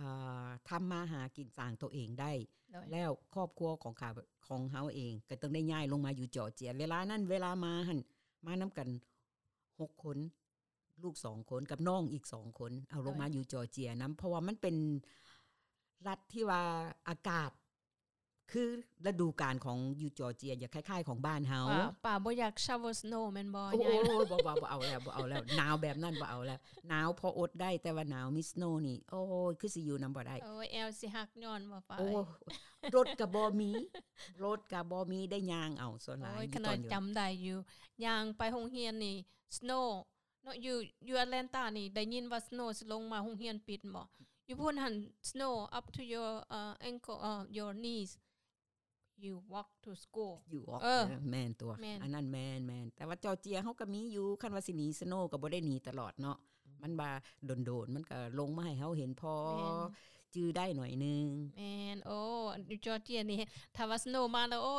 ອ່າ ທຳມາຫາກິນສ້າງໂຕເອງໄດ້ ໂດຍ ແລ້ວຄອບຄົວຂອງຂ້າ ຂອງເຮົາເອງກໍຕ້ອງໄດ້ຍ້າຍລົງມາຢູ່ຈໍເຈຍ. ເວລານັ້ນເວລາມາຫັ້ນ ມານຳກັນຫົກຄົນ ລູກສອງຄົນ ກັບນ້ອງອີກສອງຄົນ ເອົາລົງມາ ໂດຍ ຢູ່ຈໍເຈຍນຳ ເພາະວ່າມັນເປັນລັດທີ່ວ່າອາກາດ ຄືລະດູການຂອງຢູ່ຈໍເຈຍ ຈະຄ້າຍໆຂອງບ້ານເຮົາ. ປ້າ ປ້າບໍ່ຢາກ shower snow ແມ່ນບໍ່? ໂອ້ຍ ບໍ່ ບໍ່ ບໍ່ເອົາແລ້ວ ບໍ່ເອົາແລ້ວ ໜາວແບບນັ້ນບໍ່ເອົາແລ້ວ. ໜາວພໍອົດໄດ້ ແຕ່ວ່າໜາວມີ snow ນີ້ ໂອ້ຍ ຄືຊິຢູ່ນຳບໍ່ໄດ້. ໂອ້ຍ ແອວຊິຫັກຍ້ອນບໍ່ປ້າ? ໂອ້ຍ ລົດກະບໍ່ມີ ລົດກະບໍ່ມີ ໄດ້ຍ່າງເອົາສ່ວນຫຼາຍ. ໂອ້ຍ ຂະໜາດຈຳໄດ້ຢູ່ ຍ່າງໄປໂຮງຮຽນນີ້ snow ເນາະ ຢູ່ ຢູ່ Atlanta ນີ້ ໄດ້ຍິນວ່າ snow ຊິລົງມາ ໂຮງຮຽນປິດບໍ? ຢູ່ພຸ້ນຫັ້ນ snow up to your, uh, ankle, uh, your knees. You walk to school. You walk. ເອີ ເອີ ແມ່ນຕົວະ ແມ່ນ ອັນນັ້ນແມ່ນໆ. ແຕ່ວ່າຈໍເຈຍເຮົາກໍມີຢູ່ ຄັນວ່າຊິໜີ snow ກໍບໍ່ໄດ້ໜີຕະຫຼອດເນາະ. ມັນວ່າດົນໆ ມັນກໍລົງມາໃຫ້ເຮົາເຫັນພໍຈື່ໄດ້ໜ້ອຍໜຶ່ງ. ແມ່ນ. ໂອ້ ຢູ່ຈໍເຈຍນີ້ ຖ້າວ່າ snow ມາແລ້ວ ໂອ້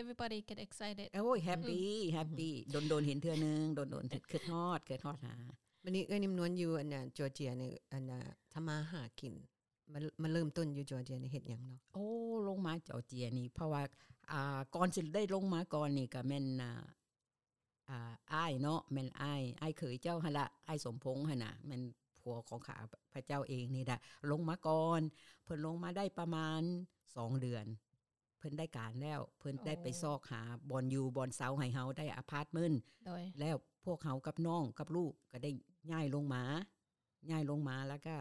everybody get excited. ໂອ້ຍ happy happy. ດົນໆ ເຫັນເທື່ອໜຶ່ງ ດົນໆ ຄິດຮອດ ຄິດຮອດຫາ. ບັດນີ້ເອື້ອຍນິມນວນຢູ່ອັນນ່າ ຈໍເຈຍນີ້ ອັນນ່າ ທຳມາຫາກິນ ມາ ມາເລີ່ມຕົ້ນຢູ່ຈໍເຈຍນີ້ເຮັດຫຍັງເນາະ? ໂອ້ ລົງມາຈໍເຈຍນີ້ ເພາະວ່າ ອ່າ ກ່ອນຊິໄດ້ລົງມາກ່ອນນີ້ ກໍແມ່ນ ອ່າ ອ່າ ອ້າຍເນາະ ແມ່ນອ້າຍ ອ້າຍເຂີຍເຈົ້າຫັ້ນລະ ອ້າຍສົມພົງຫັ້ນນະ ແມ່ນຜົວຂອງຂ້າພະເຈົ້າເອງນີ້ລະ ລົງມາກ່ອນ. ເພິ່ນລົງມາໄດ້ປະມານສອງເດືອນ ເພິ່ນໄດ້ການແລ້ວ ເພິ່ນໄດ້ໄປຊອກຫາບ່ອນຢູ່ບ່ອນເຊົາໃຫ້ເຮົາ ໄດ້ອາພາດເມັນ ໂດຍ ແລ້ວພວກເຮົາກັບນ້ອງກັບລູກກໍໄດ້ຍ້າຍລົງມາ ຍ້າຍລົງມາ ແລ້ວກໍ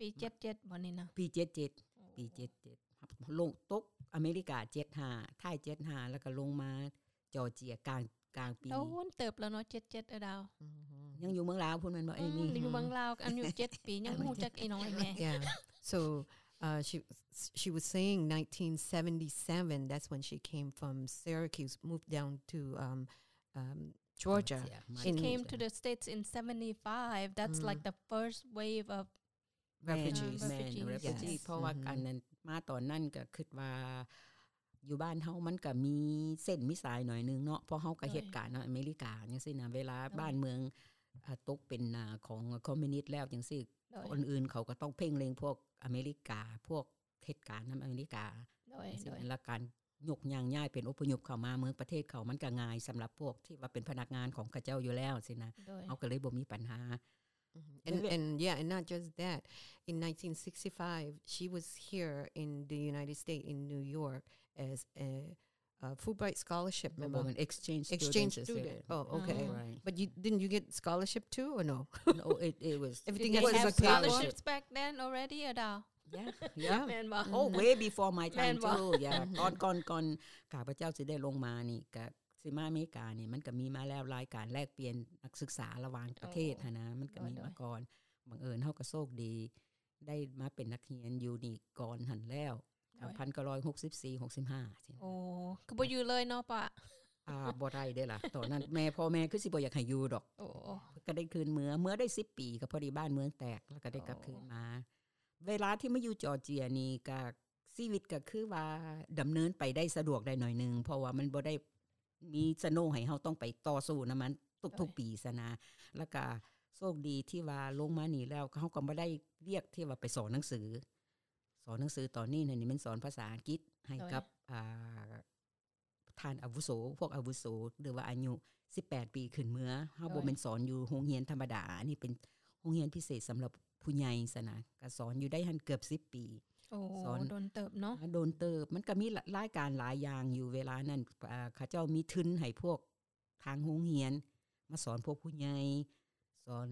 ປີເຈັດເຈັດບໍ່ນີ້ນະ? ປີເຈັດເຈັດ ໂອ້ ປີເຈັດເຈັດ ລົງ ຕົກອາເມລິກາເຈັດຫ້າ ທ້າຍເຈັດຫ້າ ແລ້ວກໍລົງມາຈໍເຈຍກາງ ກາງປີ. ໂດນເຕີບແລ້ວເນາະ ເຈັດເຈັດ ເອີດາວ. ອືມ ຍັງຢູ່ເມືອງລາວພຸ້ນແມ່ນບໍ່? ອືມ ເອມີ ຢູ່ເມືອງລາວ ອືມ ອາຍຸເຈັດປີ ຍັງບໍ່ຮູ້ຈັກອີ່ນ້ອງອີ່ແມ່. Yeah. So, uh, she, she was saying nineteen seventy-seven, that's when she came from Syracuse, moved down to, um, um, Georgia. Georgia. She came to the States in seventy-five. That's like the first wave of refugees. ແມ່ນ refugees. ເພາະວ່າອັນນັ້ນມາຕອນນັ້ນກໍຄິດວ່າຢູ່ບ້ານເຮົາມັນກໍມີເສັ້ນມີສາຍໜ້ອຍໜຶ່ງເນາະ ເພາະເຮົາກໍເຮັດການນຳອາເມລິກາຈັ່ງຊີ້ນະ ເວລາບ້ານເມືອງ ໂດຍ ອາ ຕົກເປັນ ອາ ຂອງຄອມມິວນິດແລ້ວຈັ່ງຊີ້ ໂດຍ ຄົນອື່ນເຂົາກໍຕ້ອງເພງເລັງພວກອາເມລິກາ ພວກເຮັດການນຳອາເມລິກາ ໂດຍ ຈັ່ງຊີ້ ໂດຍ ແລ້ວການຍົກຍ້າຍເປັນອົບພະຍົບເຂົ້າມາເມືອງປະເທດເຂົາ ມັນກໍງ່າຍສຳລັບພວກທີ່ວ່າເປັນພະນັກງານຂອງເຂົາເຈົ້າຢູ່ແລ້ວຊີ້ນະ ໂດຍ ເຮົາກໍເລີຍບໍ່ມີບັນຫາ. And, and yeah, and not just that. In nineteen sixty-five, she was here in the United States, in New York, as a, a Fulbright scholarship member. Exchange student. Oh, okay. But you, didn't you get scholarship too, or no? No, it, it was, everything was a scholarship. Scholarships back then already, ອາດາ? Yeah, yeah. ແມ່ນບໍ່? Oh, way before my time too. Yeah. ກ່ອນ ກ່ອນ ກ່ອນຂ້າພະເຈົ້າຊິໄດ້ລົງມານີ້ ກະຊິມາອາເມລິການີ້ ມັນກະມີມາແລ້ວ ລາຍການແລກປ່ຽນນັກສຶກສາລະຫວ່າງປະເທດຫັ້ນນະ ມັນກະມີມາກ່ອນ. ບັງເອີນເຮົາກະໂຊກດີ ໄດ້ມາເປັນນັກຮຽນຢູ່ນີ້ກ່ອນຫັ້ນແລ້ວ ໂດຍ ພັນເກົ້າຮ້ອຍຫົກສິບສີ່ ຫົກສິບຫ້າ. ໂອ້ ຄືບໍ່ຢູ່ເລີຍເນາະປ້າ? ອ່າ ບໍ່ໄດ້ເດ້ລະ ຕອນນັ້ນແມ່ ພໍ່ແມ່ຄືຊິບໍ່ຢາກໃຫ້ຢູ່ດອກ. ໂອ້ ກະໄດ້ຄືນເມືອ ເມືອໄດ້ສິບປີ ກະພໍດີບ້ານເມືອງແຕກ ແລ້ວກະໄດ້ກັບຄືນມາ. ເວລາທີ່ມາຢູ່ຈໍເຈຍນີ້ກະ ຊີວິດກໍຄືວ່າດຳເນີນໄປໄດ້ສະດວກໄດ້ໜ້ອຍໜຶ່ງ ເພາະວ່າມັນບໍ່ໄດ້ມີສະໂນໃຫ້ເຮົາຕ້ອງໄປຕໍ່ສູ້ນຳມັນທຸກໆປີຊັ້ນນະ. ແລ້ວກະໂຊກດີທີ່ວ່າລົງມານີ້ແລ້ວ ເຮົາກໍບໍ່ໄດ້ວຽກທີ່ວ່າໄປສອນໜັງສື. ສອນໜັງສືຕອນນີ້ຫັ້ນ ນີ້ແມ່ນສອນພາສາອັງກິດໃຫ້ກັບ ໂດຍ ອ່າ ທ່ານອາວຸໂສ ພວກອາວຸໂສ ຫຼືວ່າອາຍຸສິບແປດປີຂຶ້ນເມືອ. ເຮົາບໍ່ແມ່ນສອນຢູ່ໂຮງຮຽນທຳມະດາ ອັນນີ້ເປັນໂຮງຮຽນພິເສດສຳລັບຜູ້ໃຫຍ່ຊັ້ນນະ ກະສອນຢູ່ໄດ້ຫັ້ນເກືອບສິບປີ. ໂອ້ ສອນດົນເຕີບເນາະ. ອ່າ ດົນເຕີບ ມັນກະມີລາຍການຫຼາຍຢ່າງຢູ່ເວລານັ້ນ. ເຂົາເຈົ້າມີທຶນໃຫ້ພວກທາງໂຮງຮຽນມາສອນພວກຜູ້ໃຫຍ່ ສອນ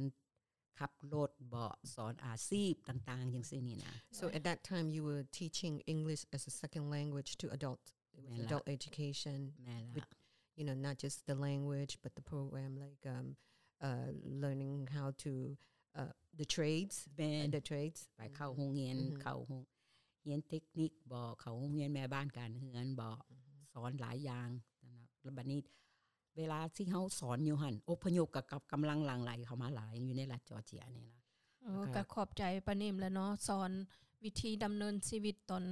ຂັບລົດເບາະ ສອນອາຊີບຕ່າງໆ ຈັ່ງຊີ້ນີ້ນະ. So at that time you were teaching English as a second language to adult. It was adult education with, you know, not just the language but the program like, um, uh, learning how to, uh, the trades. ແມ່ນ the trades. ໄປເຂົ້າໂຮງຮຽນ ເຂົ້າໂຮງຮຽນເຕັກນິກເບາະ ເຂົ້າໂຮງຮຽນແມ່ບ້ານການເຮືອນເບາະ ສອນຫຼາຍຢ່າງ. ແລ້ວບັດນີ້ ເວລາທີ່ເຮົາສອນຢູ່ຫັ້ນ ອົບພະຍົບກະກັບກຳລັງຫຼັ່ງໄຫຼເຂົ້າມາຫຼາຍຢູ່ໃນລັດຈໍເຈຍນີ້ລະ. ເອີ ກະຂອບໃຈປ້ານິມແຫຼະເນາະ ສອນວິທີດຳເນີນຊີວິດຕອນ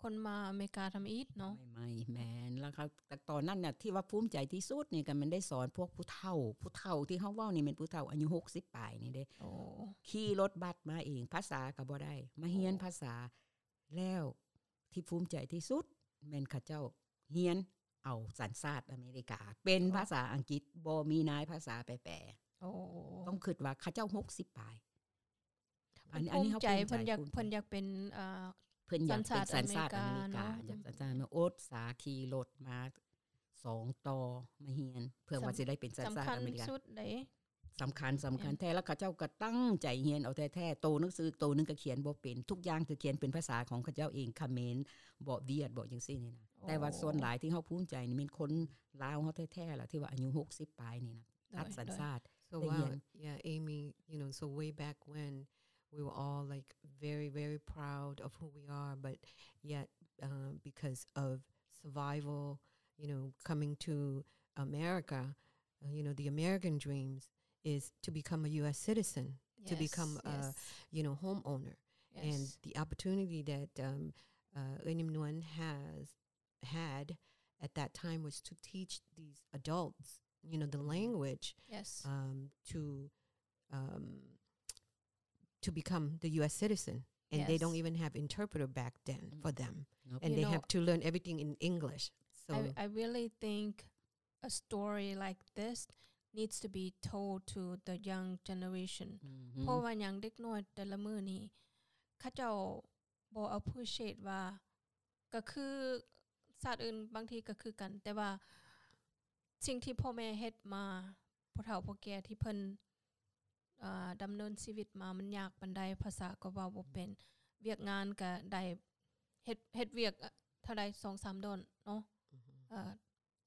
ຄົນມາອາເມລິກາທຳອິດເນາະ. ໃໝ່ໆ ແມ່ນ ແລ້ວເຂົາ ແຕ່ຕອນນັ້ນນະ ທີ່ວ່າພູມໃຈທີ່ສຸດນີ້ກະແມ່ນໄດ້ສອນພວກຜູ້ເຖົ້າ ຜູ້ເຖົ້າທີ່ເຮົາເວົ້ານີ້ແມ່ນຜູ້ເຖົ້າອາຍຸຫົກສິບປາຍນີ້ເດ້. ໂອ້ ຂີ່ລົດບັດມາເອງ ພາສາກະບໍ່ໄດ້ ມາຮຽນພາສາ ແລ້ວທີ່ພູມໃຈທີ່ສຸດແມ່ນເຂົາເຈົ້າຮຽນເອົາສັນຊາດອາເມລິກາ ເປັນພາສາອັງກິດ ບໍ່ມີນາຍພາສາແປ. ໂອ້ ຕ້ອງຄິດວ່າເຂົາເຈົ້າຫົກສິບປາຍ. ອັນນີ້ ອັນນີ້ເຮົາພູມໃຈ ເພິ່ນຢາກ ເພິ່ນຢາກເປັນ ເອີ ເພິ່ນຢາກເປັນສັນຊາດອາເມລິກາ ຢາກສັນຊາດ ອືມ ອົດສາຂີ່ລົດມາສອງຕໍ່ມາຮຽນ ເພື່ອວ່າຊິໄດ້ເປັນສັນຊາດອາເມລິກາ ສຳຄັນສຸດເດ້ ສຳຄັນ ສຳຄັນແທ້ ແມ່ນ ແລ້ວເຂົາເຈົ້າກໍຕັ້ງໃຈຮຽນເອົາແທ້ໆ ໂຕໜັງສືໂຕໜຶ່ງກໍຂຽນບໍ່ເປັນ ທຸກຢ່າງຄືຂຽນເປັນພາສາຂອງເຂົາເຈົ້າເອງ ຂະເໝນ ເບາະ ຫວຽດ ເບາະ ຈັ່ງຊີ້ນີ້ນະ ໂອ້ ແຕ່ວ່າສ່ວນຫຼາຍທີ່ເຮົາພູມໃຈນີ້ແມ່ນຄົນລາວເຮົາແທ້ໆລະ ທີ່ວ່າອາຍຸຫົກສິບປາຍນີ້ນະ ໂດຍ ຕັດສັນຊາດ ໂດຍ So ໄດ້ຮຽນ wow, yeah, Amy, you know, so way back when, we were all, like, very, very proud of who we are, but yet, uh, because of survival, you know, coming to America, uh, you know, the American dreams is to become a U S citizen, to become a, yes, you know, homeowner. Yes. And the opportunity that, um, uh, ເອື້ອຍນິມນວນ has had at that time was to teach these adults, you know, the language, yes, um, to, um, to become the U S citizen. And they, yes, don't even have interpreter back then, mm, for them. Nope. And you they know, have to learn everything in English. So I, I really think a story like this needs to be told to the young generation. ອືຮຶ ເພາະວ່າຫຍັງ ເດັກນ້ອຍແຕ່ລະມື້ນີ້ ເຂົາເຈົ້າບໍ່ appreciate ວ່າ ກໍຄືຊາດອື່ນບາງທີກໍຄືກັນ ແຕ່ວ່າສິ່ງທີ່ພໍ່ແມ່ເຮັດມາ ຜູ້ເຖົ້າຜູ້ແກ່ທີ່ເພິ່ນ ເອີ ດຳເນີນຊີວິດມາ ມັນຍາກປານໃດ ພາສາກໍເວົ້າບໍ່ເປັນ ວຽກງານກໍໄດ້ເຮັດ ເຮັດວຽກເທົ່າໃດ ສອງສາມດອນເນາະ ອືຮຶ ເອີ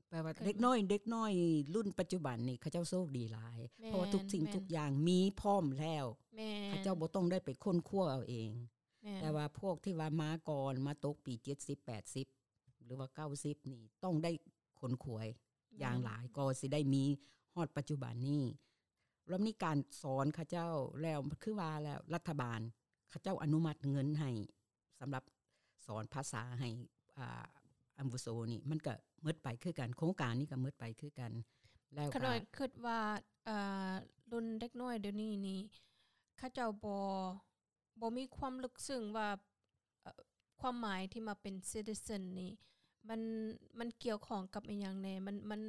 ແປວ່າເດັກນ້ອຍ ເດັກນ້ອຍລຸ້ນປັດຈຸບັນນີ້ ເຂົາເຈົ້າໂຊກດີຫຼາຍ ແມ່ນ ເພາະວ່າທຸກສິ່ງ ແມ່ນ ທຸກຢ່າງມີພ້ອມແລ້ວ ແມ່ນ ເຂົາເຈົ້າບໍ່ຕ້ອງໄດ້ໄປຄົ້ນຄວ້າເອົາເອງ ແມ່ນ ແຕ່ວ່າພວກທີ່ວ່າມາກ່ອນ ມາຕົກປີເຈັດສິບ ແປດສິບ ຫຼືວ່າເກົ້າສິບນີ້ ຕ້ອງໄດ້ຂົນຂວາຍ ແມ່ນ ຢ່າງຫຼາຍ ກໍຊິໄດ້ມີຮອດປັດຈຸບັນນີ້ ແລ້ວມີການສອນເຂົາເຈົ້າ ແລ້ວຄືວ່າແລ້ວ ລັດຖະບານເຂົາເຈົ້າອະນຸມັດເງິນໃຫ້ ສຳລັບສອນພາສາໃຫ້ ອ່າ ອາວຸໂສນີ້ ມັນກໍໝົດໄປຄືກັນ ໂຄງການນີ້ກໍໝົດໄປຄືກັນ ແລ້ວກໍ ຂ້ານ້ອຍຄິດວ່າ ເອີ ລຸ້ນເດັກນ້ອຍດຽວນີ້ນີ້ ເຂົາເຈົ້າບໍ່ ບໍ່ມີຄວາມເລິກເຊິ່ງວ່າ ເອີ ຄວາມໝາຍທີ່ມາເປັນ citizen ນີ້ ມັນ ມັນກ່ຽວຂ້ອງກັບອີ່ຫຍັງແດ່ ມັນ ມັນ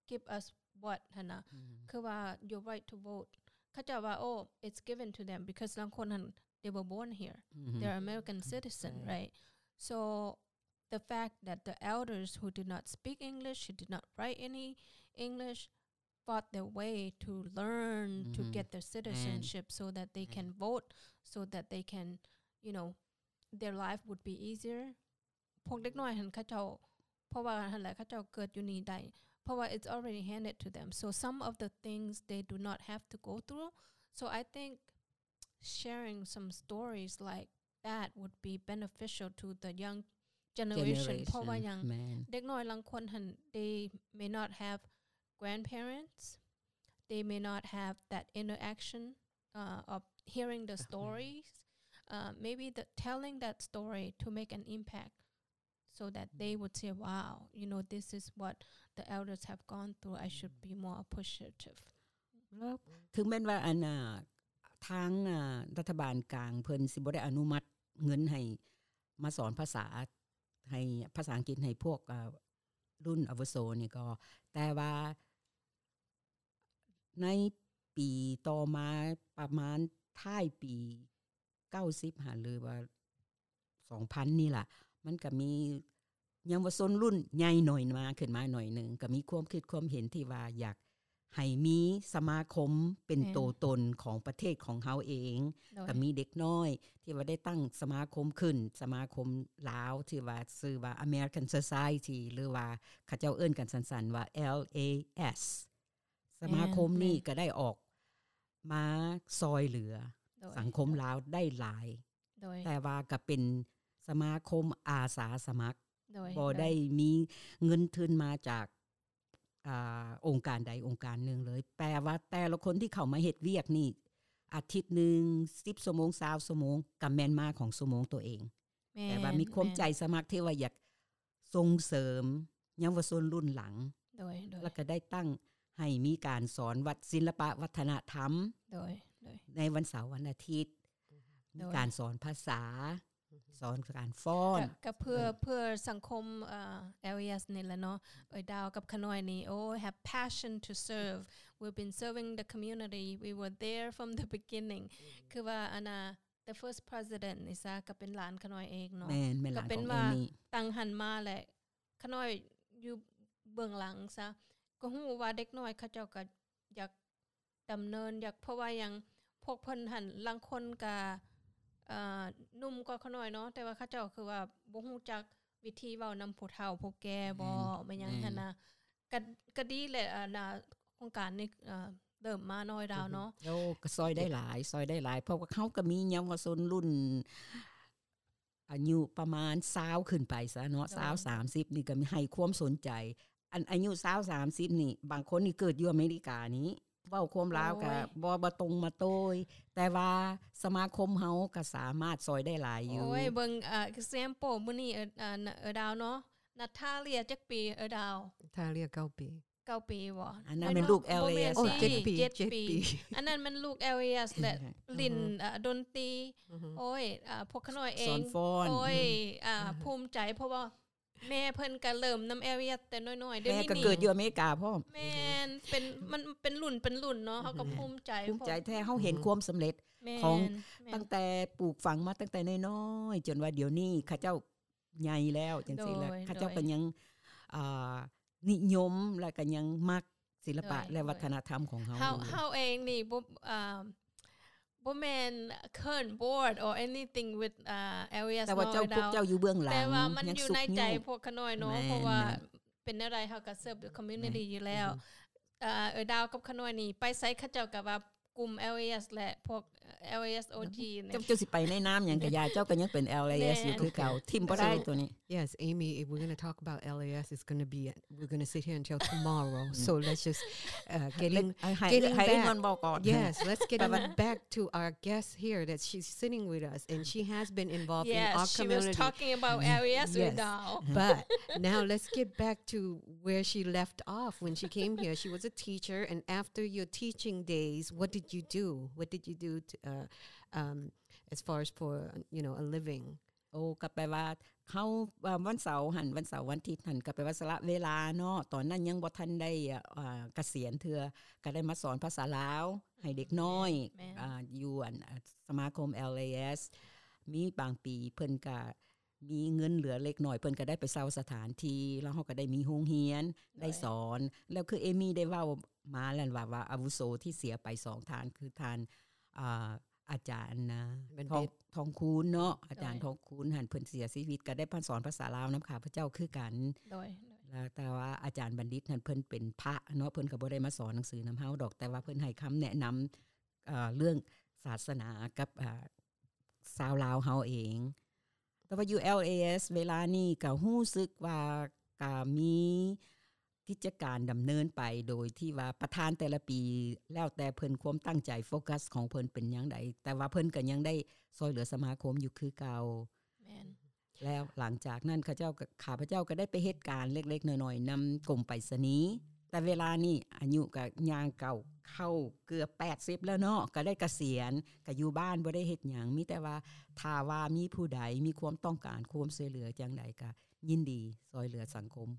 give us what ຫັ້ນນະ ອືມ ຄືວ່າ your right to vote ເຂົາເຈົ້າວ່າ oh, it's given to them because ລາງຄົນຫັ້ນ they were born here, ອືມ they're American citizen, right? So the fact that the elders who did not speak English, who did not write any English, fought their way to learn, to get their citizenship so that they can vote, so that they can, you know, their life would be easier. ພວກເດັກນ້ອຍຫັ້ນເຂົາເຈົ້າ ເພາະວ່າຫັ້ນແຫຼະ ເຂົາເຈົ້າເກີດຢູ່ນີ້ໄດ້ ເພາະວ່າ it's already handed to them. So some of the things they do not have to go through. So I think sharing some stories like that would be beneficial to the young generation. ເພາະວ່າຫຍັງ ເດັກນ້ອຍລາງຄົນຫັ້ນ they may not have grandparents, they may not have that interaction, uh, of hearing the stories, uh, maybe the telling that story to make an impact so that they would say, wow, you know, this is what the elders have gone through, I should be more appreciative. ເຖິງແມ່ນວ່າອັນ ອ່າ ທາງ ອ່າ ລັດຖະບານກາງເພິ່ນຊິບໍ່ໄດ້ອະນຸມັດເງິນໃຫ້ມາສອນພາສາ ໃຫ້ພາສາອັງກິດໃຫ້ພວກ ອ່າ ລຸ້ນອາວຸໂສນີ້ກໍ ແຕ່ວ່າໃນປີຕໍ່ມາ ປະມານທ້າຍປີເກົ້າສິບຫັ້ນ ຫຼືວ່າສອງພັນນີ້ລະ ມັນກະມີເຍົາວະຊົນລຸ້ນໃຫຍ່ໜ້ອຍມາ ຂຶ້ນມາໜ້ອຍໜຶ່ງ ກະມີຄວາມຄິດຄວາມເຫັນທີ່ວ່າຢາກ ໃຫ້ມີສະມາຄົມເປັນໂຕຕົນຂອງປະເທດຂອງເຮົາເອງ ກະມີເດັກນ້ອຍທີ່ວ່າໄດ້ຕັ້ງສະມາຄົມຂຶ້ນ ສະມາຄົມລາວທີ່ວ່າຊື່ວ່າ American Society ຫຼືວ່າເຂົາເຈົ້າເອີ້ນກັນສັ້ນໆວ່າ ແອລ ເອ ເອສ ສະມາຄົມນີ້ກະໄດ້ອອກມາຊ່ອຍເຫຼືອສັງຄົມລາວໄດ້ຫຼາຍ ແຕ່ວ່າກະເປັນສະມາຄົມອາສາສະໝັກ ບໍ່ໄດ້ມີເງິນທຶນມາຈາກ ອ່າ ອົງການໃດອົງການໜຶ່ງເລີຍ ແປວ່າແຕ່ລະຄົນທີ່ເຂົ້າມາເຮັດວຽກນີ້ ອາທິດໜຶ່ງ ສິບຊົ່ວໂມງ ຊາວຊົ່ວໂມງ ກະແມ່ນມາຂອງຊົ່ວໂມງໂຕເອງ ແຕ່ວ່າມີຄວາມໃຈສະໝັກທີ່ວ່າຢາກສົ່ງເສີມເຍົາວະຊົນລຸ້ນຫຼັງ ແລ້ວກະໄດ້ຕັ້ງໃຫ້ມີການສອນວັດ ສິລະປະວັດທະນະທຳ ໃນວັນເສົາວັນອາທິດ ມີການສອນພາສາ ສອນການຟ້ອນ ກະ ກະເພື່ອ ເພື່ອສັງຄົມ ເອີ ແອລ ເອສ ນີ້ແຫຼະເນາະ ເອື້ອຍດາວກັບຂະນ້ອຍນີ້ ໂອ້ have passion to serve, we've been serving the community, we were there from the beginning ຄືວ່າອັນນ່າ the first president ນີ້ຊະ ກໍເປັນຫຼານຂະນ້ອຍເອງເນາະ. ແມ່ນ ແມ່ນຫຼານຂອງເອມີ່. ຕັ້ງຫັ້ນມາແຫຼະ ຂະນ້ອຍຢູ່ເບື້ອງຫຼັງຊະ ກໍຮູ້ວ່າເດັກນ້ອຍເຂົາເຈົ້າກໍຢາກ ດຳເນີນ ຢາກ ເພາະວ່າຫຍັງ ພວກເພິ່ນຫັ້ນ ລາງຄົນກະ ເອີ ໜຸ່ມກວ່າຂະນ້ອຍເນາະ ແຕ່ວ່າເຂົາເຈົ້າຄືວ່າບໍ່ຮູ້ຈັກວິທີເວົ້ານຳຜູ້ເຖົ້າຜູ້ແກ່ບໍ ແມ່ນ ແມ່ນຫຍັງຫັ້ນນະ. ກະ ກະດີແຫຼະ ອັນນະ ໂຄງການນີ້ ເອີ ເລີ່ມມານ້ອຍດາວເນາະ. ໂອ້ ກະຊ່ອຍໄດ້ຫຼາຍ ຊ່ອຍໄດ້ຫຼາຍ ເພາະວ່າເຮົາກະມີເຍົາວະຊົນລຸ້ນ ອາຍຸປະມານຊາວຂຶ້ນໄປຊະເນາະ ຊາວ ສາມສິບນີ້ກໍໃຫ້ຄວາມສົນໃຈ. ອັນອາຍຸຊາວ ສາມສິບນີ້ ບາງຄົນນີ້ເກີດຢູ່ອາເມລິການີ້ ເວົ້າຄວາມລາວກໍ ໂອ້ຍ ບໍ່ ບໍ່ຕົງມາໂຕ້ຍ ແຕ່ວ່າສະມາຄົມເຮົາກໍສາມາດຊ່ອຍໄດ້ຫຼາຍຢູ່. ໂອ້ຍ ເບິ່ງ example ມື້ນີ້ ເອີ ດາວເນາະ ນາທາເລຍຈັກປີ ເອີ ດາວ? ນາທາເລຍ ເກົ້າປີ. ເກົ້າປີບໍ? ອັນນັ້ນແມ່ນລູກ LAS ເຈັດປີ ເຈັດປີ. ອັນນັ້ນແມ່ນລູກ LAS ແຫຼະ ຫຼິ້ນດົນຕີ ໂອ້ຍ ພວກຂະນ້ອຍເອງ ໂອ້ຍ ພູມໃຈ ເພາະວ່າແມ່ເພິ່ນກະເລີ່ມນຳ LAS ແຕ່ນ້ອຍໆ ດຽວນີ້ ແມ່ກໍເກີດຢູ່ອາເມລິກາພ້ອມ. ແມ່ນ ເປັນ ມັນເປັນລຸ້ນເປັນລຸ້ນເນາະ ເຮົາກໍພູມໃຈ ພູມໃຈແທ້ ເຮົາເຫັນຄວາມສຳເລັດຂອງ ຕັ້ງແຕ່ປູກຝັງມາຕັ້ງແຕ່ນ້ອຍໆ ຈົນວ່າດຽວນີ້ເຂົາເຈົ້າ ໃຫຍ່ແລ້ວຈັ່ງຊີ້ແຫຼະ ເຂົາເຈົ້າກໍຍັງ ອ່າ ນິຍົມ ແລະກໍຍັງມັກສິລະປະ ແລະວັດທະນະທຳຂອງເຮົາ. ເຮົາເອງນີ້ບໍ່ ອ່າ ບໍ່ແມ່ນ current board or anything with LAS ແຕ່ວ່າເຈົ້າ ພວກເຈົ້າຢູ່ເບື້ອງຫຼັງ ແຕ່ວ່າມັນຢູ່ໃນໃຈພວກຂະນ້ອຍເນາະ ເພາະວ່າເປັນແນວໃດເຮົາກໍ serve the community ຢູ່ແລ້ວ. ເອີ ດາວກັບຂະນ້ອຍນີ້ ໄປໃສເຂົາເຈົ້າກໍວ່າ ກຸ່ມ LAS ແລະພວກ LAS OG ເຈົ້າ ເຈົ້າຊິໄປໃນນາມຫຍັງກະຢ່າ ເຈົ້າກໍຍັງເປັນ LAS ຢູ່ຄືເກົ່າ ຖິ້ມບໍ່ໄດ້ໂຕນີ້. Yes, Amy, if we're gonna talk about LAS, it's gonna be, we're gonna sit here until tomorrow. So let's just, uh, getting, getting back. Yes, let's getting back to our guest here that she's sitting with us, and she has been involved in our community. Yes, she was talking about LAS with Dao. But now let's get back to where she left off when she came here. She was a teacher, and after your teaching days, what did you do? What did you do to, uh, um, as far as for, you know, a living? ໂອ້ ກໍແປວ່າເຮົາ ວັນເສົາຫັ້ນ ວັນເສົາວັນທິດຫັ້ນ ກໍແປວ່າສະຫຼະເວລາເນາະ ຕອນນັ້ນຍັງບໍ່ທັນໄດ້ ອ່າ ກະສຽນເທື່ອ ກໍໄດ້ມາສອນພາສາລາວໃຫ້ເດັກນ້ອຍ ແມ່ນ ອ່າ ຢູ່ອັນ ສະມາຄົມ LAS. ມີບາງປີເພິ່ນກະ ມີເງິນເຫຼືອເລັກນ້ອຍ ເພິ່ນກໍໄດ້ໄປເຊົ່າສະຖານທີ່ ແລ້ວເຮົາກໍໄດ້ມີໂຮງຮຽນ ໄດ້ສອນ ແລ້ວຄືເອມີ່ໄດ້ເວົ້າມາແລ້ວວ່າ ວ່າອາວຸໂສທີ່ເສຍໄປສອງທ່ານ ຄືທ່ານ ອ່າ ອາຈານນະ ທອງ ທອງຄູນເນາະ ອາຈານທອງຄູນຫັ້ນ ເພິ່ນເສຍຊີວິດ ກໍໄດ້ມາສອນພາສາລາວນຳຂ້າພະເຈົ້າຄືກັນ ແລ້ວແຕ່ວ່າອາຈານບັນດິດຫັ້ນ ເພິ່ນເປັນພະເນາະ ເພິ່ນກໍບໍ່ໄດ້ມາສອນໜັງສືນຳເຮົາດອກ ແຕ່ວ່າເພິ່ນໃຫ້ຄຳແນະນຳ ເອີ ເລື່ອງສາສະໜາກັບ ເອີ ຊາວລາວເຮົາເອງ. ແຕ່ວ່າຢູ່ LAS ເວລານີ້ກໍຮູ້ສຶກວ່າກໍມີກິດຈະການດຳເນີນໄປ ໂດຍທີ່ວ່າປະທານແຕ່ລະປີ ແລ້ວແຕ່ເພິ່ນຄວາມຕັ້ງໃຈ ໂຟກັສຂອງເພິ່ນເປັນຫຍັງໃດ ແຕ່ວ່າເພິ່ນກໍຍັງໄດ້ຊ່ອຍເຫຼືອສະມາຄົມຢູ່ຄືເກົ່າ. ແມ່ນ ແລ້ວຫຼັງຈາກນັ້ນ ເຂົາເຈົ້າກໍ ຂ້າພະເຈົ້າກໍໄດ້ໄປເຮັດການເລັກໆນ້ອຍໆນຳກົມໄປສະນີ ແຕ່ເວລານີ້ອາຍຸກໍຍ່າງກ້າວເຂົ້າເກືອບແປດສິບແລ້ວເນາະ ກໍໄດ້ກະສຽນ ກໍຢູ່ບ້ານບໍ່ໄດ້ເຮັດຫຍັງ ມີແຕ່ວ່າຖ້າວ່າມີຜູ້ໃດມີຄວາມຕ້ອງການຄວາມຊ່ວຍເຫຼືອຈັ່ງໃດ ກໍຍິນດີຊ່ວຍເຫຼືອສັງຄົມ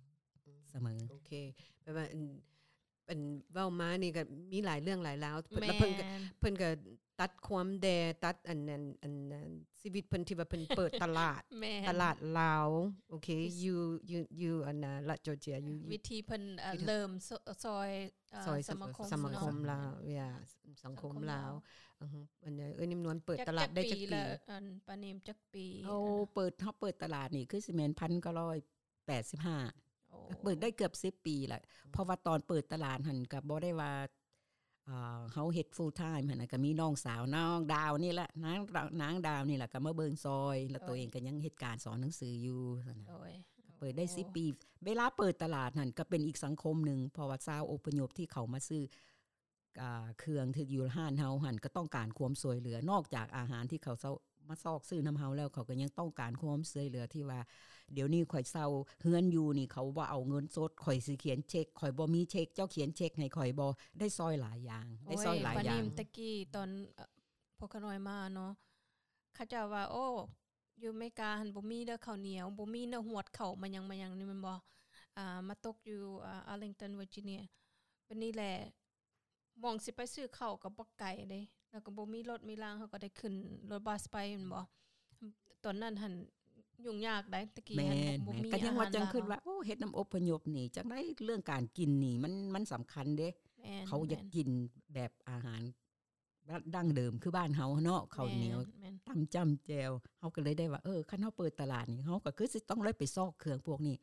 ສະເໝີ. ໂອເຄ ແປວ່າ ອັນເວົ້າມານີ້ກໍມີຫຼາຍເລື່ອງຫຼາຍລາວ ແມ່ນ ເພິ່ນກໍ ເພິ່ນກໍຕັດຄວາມແດ່ ຕັດອັນນັ້ນ ອັນນັ້ນ ຊີວິດເພິ່ນທີ່ວ່າເພິ່ນເປີດຕະຫຼາດ ແມ່ນ ຕະຫຼາດລາວ ໂອເຄ ຢູ່ ຢູ່ ຢູ່ອັນນະ ລັດຈໍເຈຍ ຢູ່ ວິທີເພິ່ນ ເອີ ເລີ່ມ ຊ່ອຍ ເອີ ຊ່ອຍສະມາຄົມ ສະມາຄົມລາວ ເນາະ ເອີ ສັງຄົມລາວ ສັງຄົມລາວ ອັນ ເອີ ເອີຍ ນິມນວນເປີດຕະຫຼາດໄດ້ຈັກປີ ອັນ ປານິມຈັກປີ? ໂອ້ ເປີດ ເຮົາເປີດຕະຫຼາດນີ້ຄືຊິແມ່ນພັນເກົ້າຮ້ອຍ ແປດສິບຫ້າ ໂອ້ ເປີດໄດ້ເກືອບສິບປີແລ້ວ ເພາະວ່າຕອນເປີດຕະຫຼາດຫັ້ນກໍບໍ່ໄດ້ວ່າ ເອີ ເຮົາເຮັດ full time ຫັ້ນນະ ກໍມີນ້ອງສາວ ນ້ອງດາວນີ້ແຫຼະ ນາງ ນາງດາວນີ້ແຫຼະ ກໍມາເບິ່ງຊ່ອຍ ແລ້ວໂຕເອງກໍຍັງເຮັດການສອນໜັງສືຢູ່ຊັ້ນນະ ໂດຍ ເປີດໄດ້ສິບປີ ເວລາເປີດຕະຫຼາດຫັ້ນກໍເປັນອີກສັງຄົມໜຶ່ງ ເພາະວ່າຊາວອົບພະຍົບທີ່ເຂົ້າມາຊື້ ອ່າ ເຄື່ອງທີ່ຢູ່ຮ້ານເຮົາຫັ້ນກໍຕ້ອງການຄວາມຊ່ວຍເຫຼືອ ນອກຈາກອາຫານທີ່ເຂົາເຊົ່າ ມາຊອກຊື້ນຳເຮົາແລ້ວ ເຂົາກໍຍັງຕ້ອງການຄວາມຊ່ວຍເຫຼືອທີ່ວ່າ ດຽວນີ້ຂ້ອຍເຊົ່າເຮືອນຢູ່ນີ້ ເຂົາບໍ່ເອົາເງິນສົດ ຂ້ອຍຊິຂຽນເຊັກ ຂ້ອຍບໍ່ມີເຊັກ ເຈົ້າຂຽນເຊັກໃຫ້ຂ້ອຍບໍ່? ໄດ້ຊ່ອຍຫຼາຍຢ່າງ ໂອ້ຍ ໄດ້ຊ່ອຍຫຼາຍຢ່າງ ປານິມ ແຕ່ກີ້ຕອນ ເອີ ພວກຂ້ານ້ອຍມາເນາະ ເຂົາເຈົ້າວ່າ ໂອ້ ຢູ່ອາເມລິກາຫັ້ນບໍ່ມີເດີເຂົ້າໜຽວ ບໍ່ມີເດີ ຫວດເຂົ້າມາຫຍັງ ມາຫຍັງນີ້ແມ່ນບໍ່? ອ່າ ມາຕົກຢູ່ ອ່າ Arlington Virginia ບັດນີ້ແຫຼະ ໝ່ອງຊິໄປຊື້ເຂົ້າກໍບໍ່ໄກເດ້ ແລ້ວກໍບໍ່ມີລົດມີລາງ ເຮົາກໍໄດ້ຂຶ້ນລົດບັສໄປແມ່ນບໍ່? ຕອນນັ້ນຫັ້ນຫຍຸ້ງຍາກໃດ໋ ຕະກີ້ຫັ້ນບໍ່ມີ ກໍຍັງວ່າຈັ່ງຄິດວ່າ ໂອ້ ເຮັດນຳອົບພະຍົບນີ້ ຈັ່ງໃດເລື່ອງການກິນນີ້ ມັນ ມັນສຳຄັນເດ້ ເຂົາຢາກກິນແບບອາຫານ ດັ້ງເດີມຄືບ້ານເຮົາເນາະ ເຂົ້າໜຽວ ຕຳຈ້ຳແຈ່ວ ເຮົາກໍເລີຍໄດ້ວ່າ ເອີ ຄັນເຮົາເປີດຕະຫຼາດນີ້ ເຮົາກໍຄືຊິຕ້ອງໄດ້ໄປຊອກເຄື່ອງພວກນີ້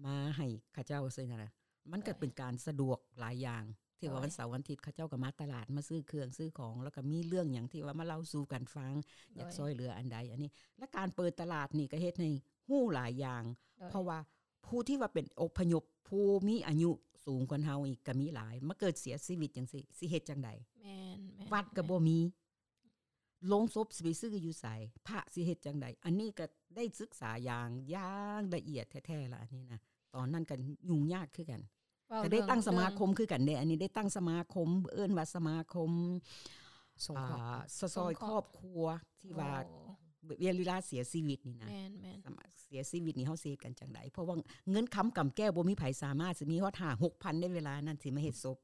ມາໃຫ້ເຂົາເຈົ້າ ຊີ້ນະ ມັນກໍເປັນການສະດວກຫຼາຍຢ່າງ ທີ່ວ່າວັນເສົາວັນອາທິດເຂົາເຈົ້າກໍມາຕະຫຼາດ ມາຊື້ເຄື່ອງຊື້ຂອງ ແລ້ວກໍມີເລື່ອງຫຍັງທີ່ວ່າມາເລົ່າສູ່ກັນຟັງ ຢາກຊ່ອຍເຫຼືອອັນໃດ ອັນນີ້ ແລະ ການເປີດຕະຫຼາດນີ້ກໍເຮັດໃຫ້ຮູ້ຫຼາຍຢ່າງ ເພາະວ່າ ຜູ້ທີ່ວ່າເປັນອົບພະຍົບ ຜູ້ມີອາຍຸສູງກວ່າເຮົາອີກກໍມີຫຼາຍ ມາເກີດເສຍຊີວິດຈັ່ງຊີ້ ຊິເຮັດຈັ່ງໃດ? ແມ່ນໆ ວັດກໍບໍ່ມີ ໂລງສົບຊິໄປຊື້ຢູ່ໃສ? ພະຊິເຮັດຈັ່ງໃດ? ອັນນີ້ກໍໄດ້ສຶກສາຢ່າງ ຢ່າງລະອຽດແທ້ໆລະ ອັນນີ້ນະ ຕອນນັ້ນກໍຫຍຸ້ງຍາກຄືກັນ ກໍໄດ້ຕັ້ງສະມາຄົມຄືກັນເດ້ ອັນນີ້ໄດ້ຕັ້ງສະມາຄົມ ເອີ້ນວ່າສະມາຄົມ ສົງເຄາະ ອາ ສະຊ່ອຍຄອບຄົວທີ່ວ່າ ເວລາເສຍຊີວິດນີ້ນະ ແມ່ນໆ ສະມາ ເສຍຊີວິດນີ້ເຮົາຊິເຮັດກັນຈັ່ງໃດ? ເພາະວ່າເງິນຄຳກຳແກ້ວບໍ່ມີໃຜສາມາດຊິມີຮອດຫ້າຫົກພັນໃນເວລານັ້ນ ຊິມາເຮັດສົບ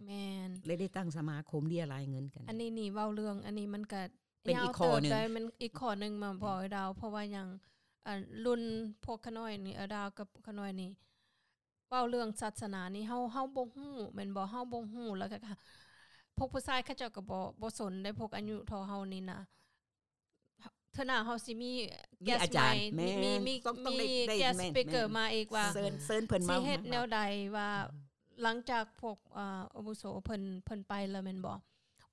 ແມ່ນ ເລີຍໄດ້ຕັ້ງສະມາຄົມເລຍລາຍເງິນກັນ ອັນນີ້ນີ້ເວົ້າເລື່ອງ ອັນນີ້ມັນກະເປັນອີກຂໍ້ໜຶ່ງ ມັນອີກຂໍ້ໜຶ່ງມາພໍດາວ ເພາະວ່າຫຍັງ ອ່າ ລຸ້ນພວກຂະນ້ອຍນີ້ ອາດາວກັບຂະນ້ອຍນີ້ ເວົ້າເລື່ອງສາສະໜານີ້ ເຮົາ ເຮົາບໍ່ຮູ້ແມ່ນບໍ່? ເຮົາບໍ່ຮູ້ ແລ້ວກໍພວກຜູ້ຊາຍເຂົາເຈົ້າກໍບໍ່ ບໍ່ສົນໄດ໋ ພວກອາຍຸເທົ່າເຮົານີ້ນະ ເທື່ອໜ້າເຮົາຊິມີ guest ໃໝ່ ມີ ມີ guest speaker ມາອີກວ່າ ເຊີນ ເຊີນເພິ່ນມາ ຊິເຮັດແນວໃດວ່າ ຫຼັງຈາກພວກ ອາ ອາວຸໂສເພິ່ນ ເພິ່ນໄປແລ້ວແມ່ນບໍ່?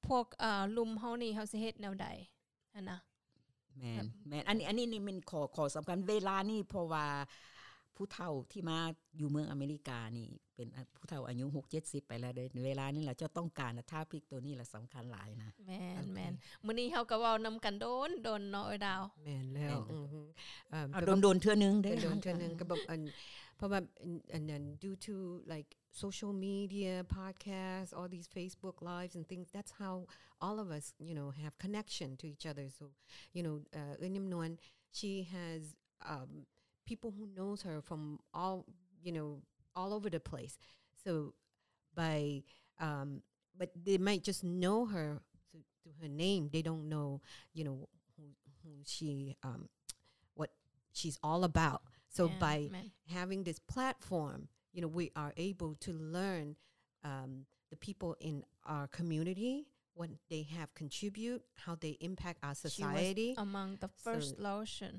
ພວກ ອາ ລຸ້ນເຮົານີ້ ເຮົາຊິເຮັດແນວໃດ? ຫັ້ນນະ ແມ່ນ ແມ່ນ ອັນນີ້ ອັນນີ້ນີ້ແມ່ນຂໍ້ ຂໍ້ສຳຄັນເວລານີ້ ເພາະວ່າຜູ້ເຖົ້າທີ່ມາຢູ່ເມືອງອາເມລິການີ້ ເປັນ ອາ ຜູ້ເຖົ້າອາຍຸຫົກເຈັດສິບໄປແລ້ວເດ້ ເວລານີ້ລະ ເຈົ້າຕ້ອງການ topic ໂຕນີ້ລະສຳຄັນຫຼາຍນະ ແມ່ນ ແມ່ນ ມື້ນີ້ເຮົາກໍເວົ້ານຳກັນດົນໆເນາະ ເອີດາວ ແມ່ນແລ້ວ ອື ເອົາ ແຕ່ວ່າດົນໆເທື່ອໜຶ່ງເດ້ ດົນໆເທື່ອໜຶ່ງ ກໍແບບ ອັນ ເພາະວ່າ ອັນ ອັນນັ້ນ due to like social media, podcasts, all these Facebook Lives and things. That's how all of us, you know, have connection to each other. So, you know, uh, ເອື້ອຍນິມນວນ she has, um, people who knows her from all, you know, all over the place. So by, um, but they might just know her through, through her name. They don't know, you know, who, who she, um, what she's all about. So by having this platform, you know, we are able to learn, um, the people in our community, what they have contribute, how they impact our society. She was among the first Laotian.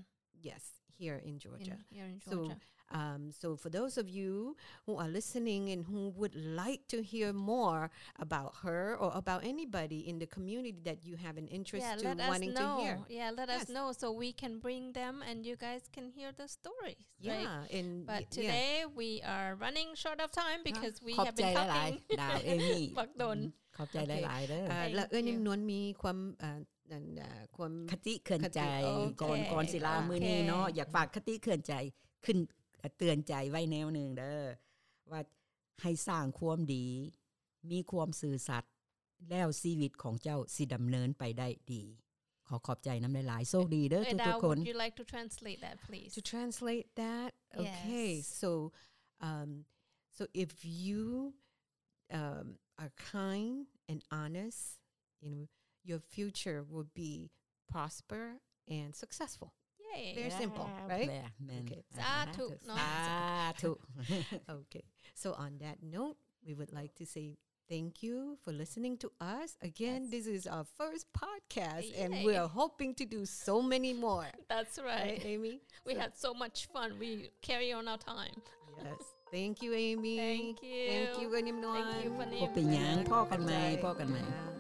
Yes, here in Georgia. In, here in Georgia. So, um, so for those of you who are listening and who would like to hear more about her or about anybody in the community that you have an interest to wanting to hear. Yeah, let us know. Yeah, let us know so we can bring them and you guys can hear the stories. Yeah, right? And but today we are running short of time because we have been talking ບັກດົນ ຂອບໃຈຫຼາຍໆເດີ ແລ້ວເອື້ອຍນິມນວນມີຄວາມ ຄະຕິເຕືອນໃຈ ກ່ອນ ກ່ອນຊິລາມື້ນີ້ເນາະ ຢາກຝາກຄະຕິເຕືອນໃຈຂຶ້ນ ເຕືອນໃຈໄວ້ແນວໜຶ່ງເດີ ວ່າໃຫ້ສ້າງຄວາມດີ ມີຄວາມຊື່ສັດ ແລ້ວຊີວິດຂອງເຈົ້າຊິດຳເນີນໄປໄດ້ດີ. ຂໍຂອບໃຈນຳຫຼາຍໆ ໂຊກດີເດີທຸກໆຄົນ. Would you like to translate that, please? To translate that? Okay. So, um, so if you, um, are kind and honest, you know, your future will be prosper and successful. Yay. Very simple, right? Okay. ສາທຸເນາະ ສາທຸ. Okay. So on that note, we would like to say thank you for listening to us. Again, this is our first podcast, and we are hoping to do so many more. That's right. Right, Amy? We had so much fun. We carry on our time. Yes. Thank you, Amy. Thank you. Thank you, ເອື້ອຍນິມນວນ. ບໍ່ເປັນຫຍັງ ພໍ້ກັນໃໝ່ ພໍ້ກັນໃໝ່.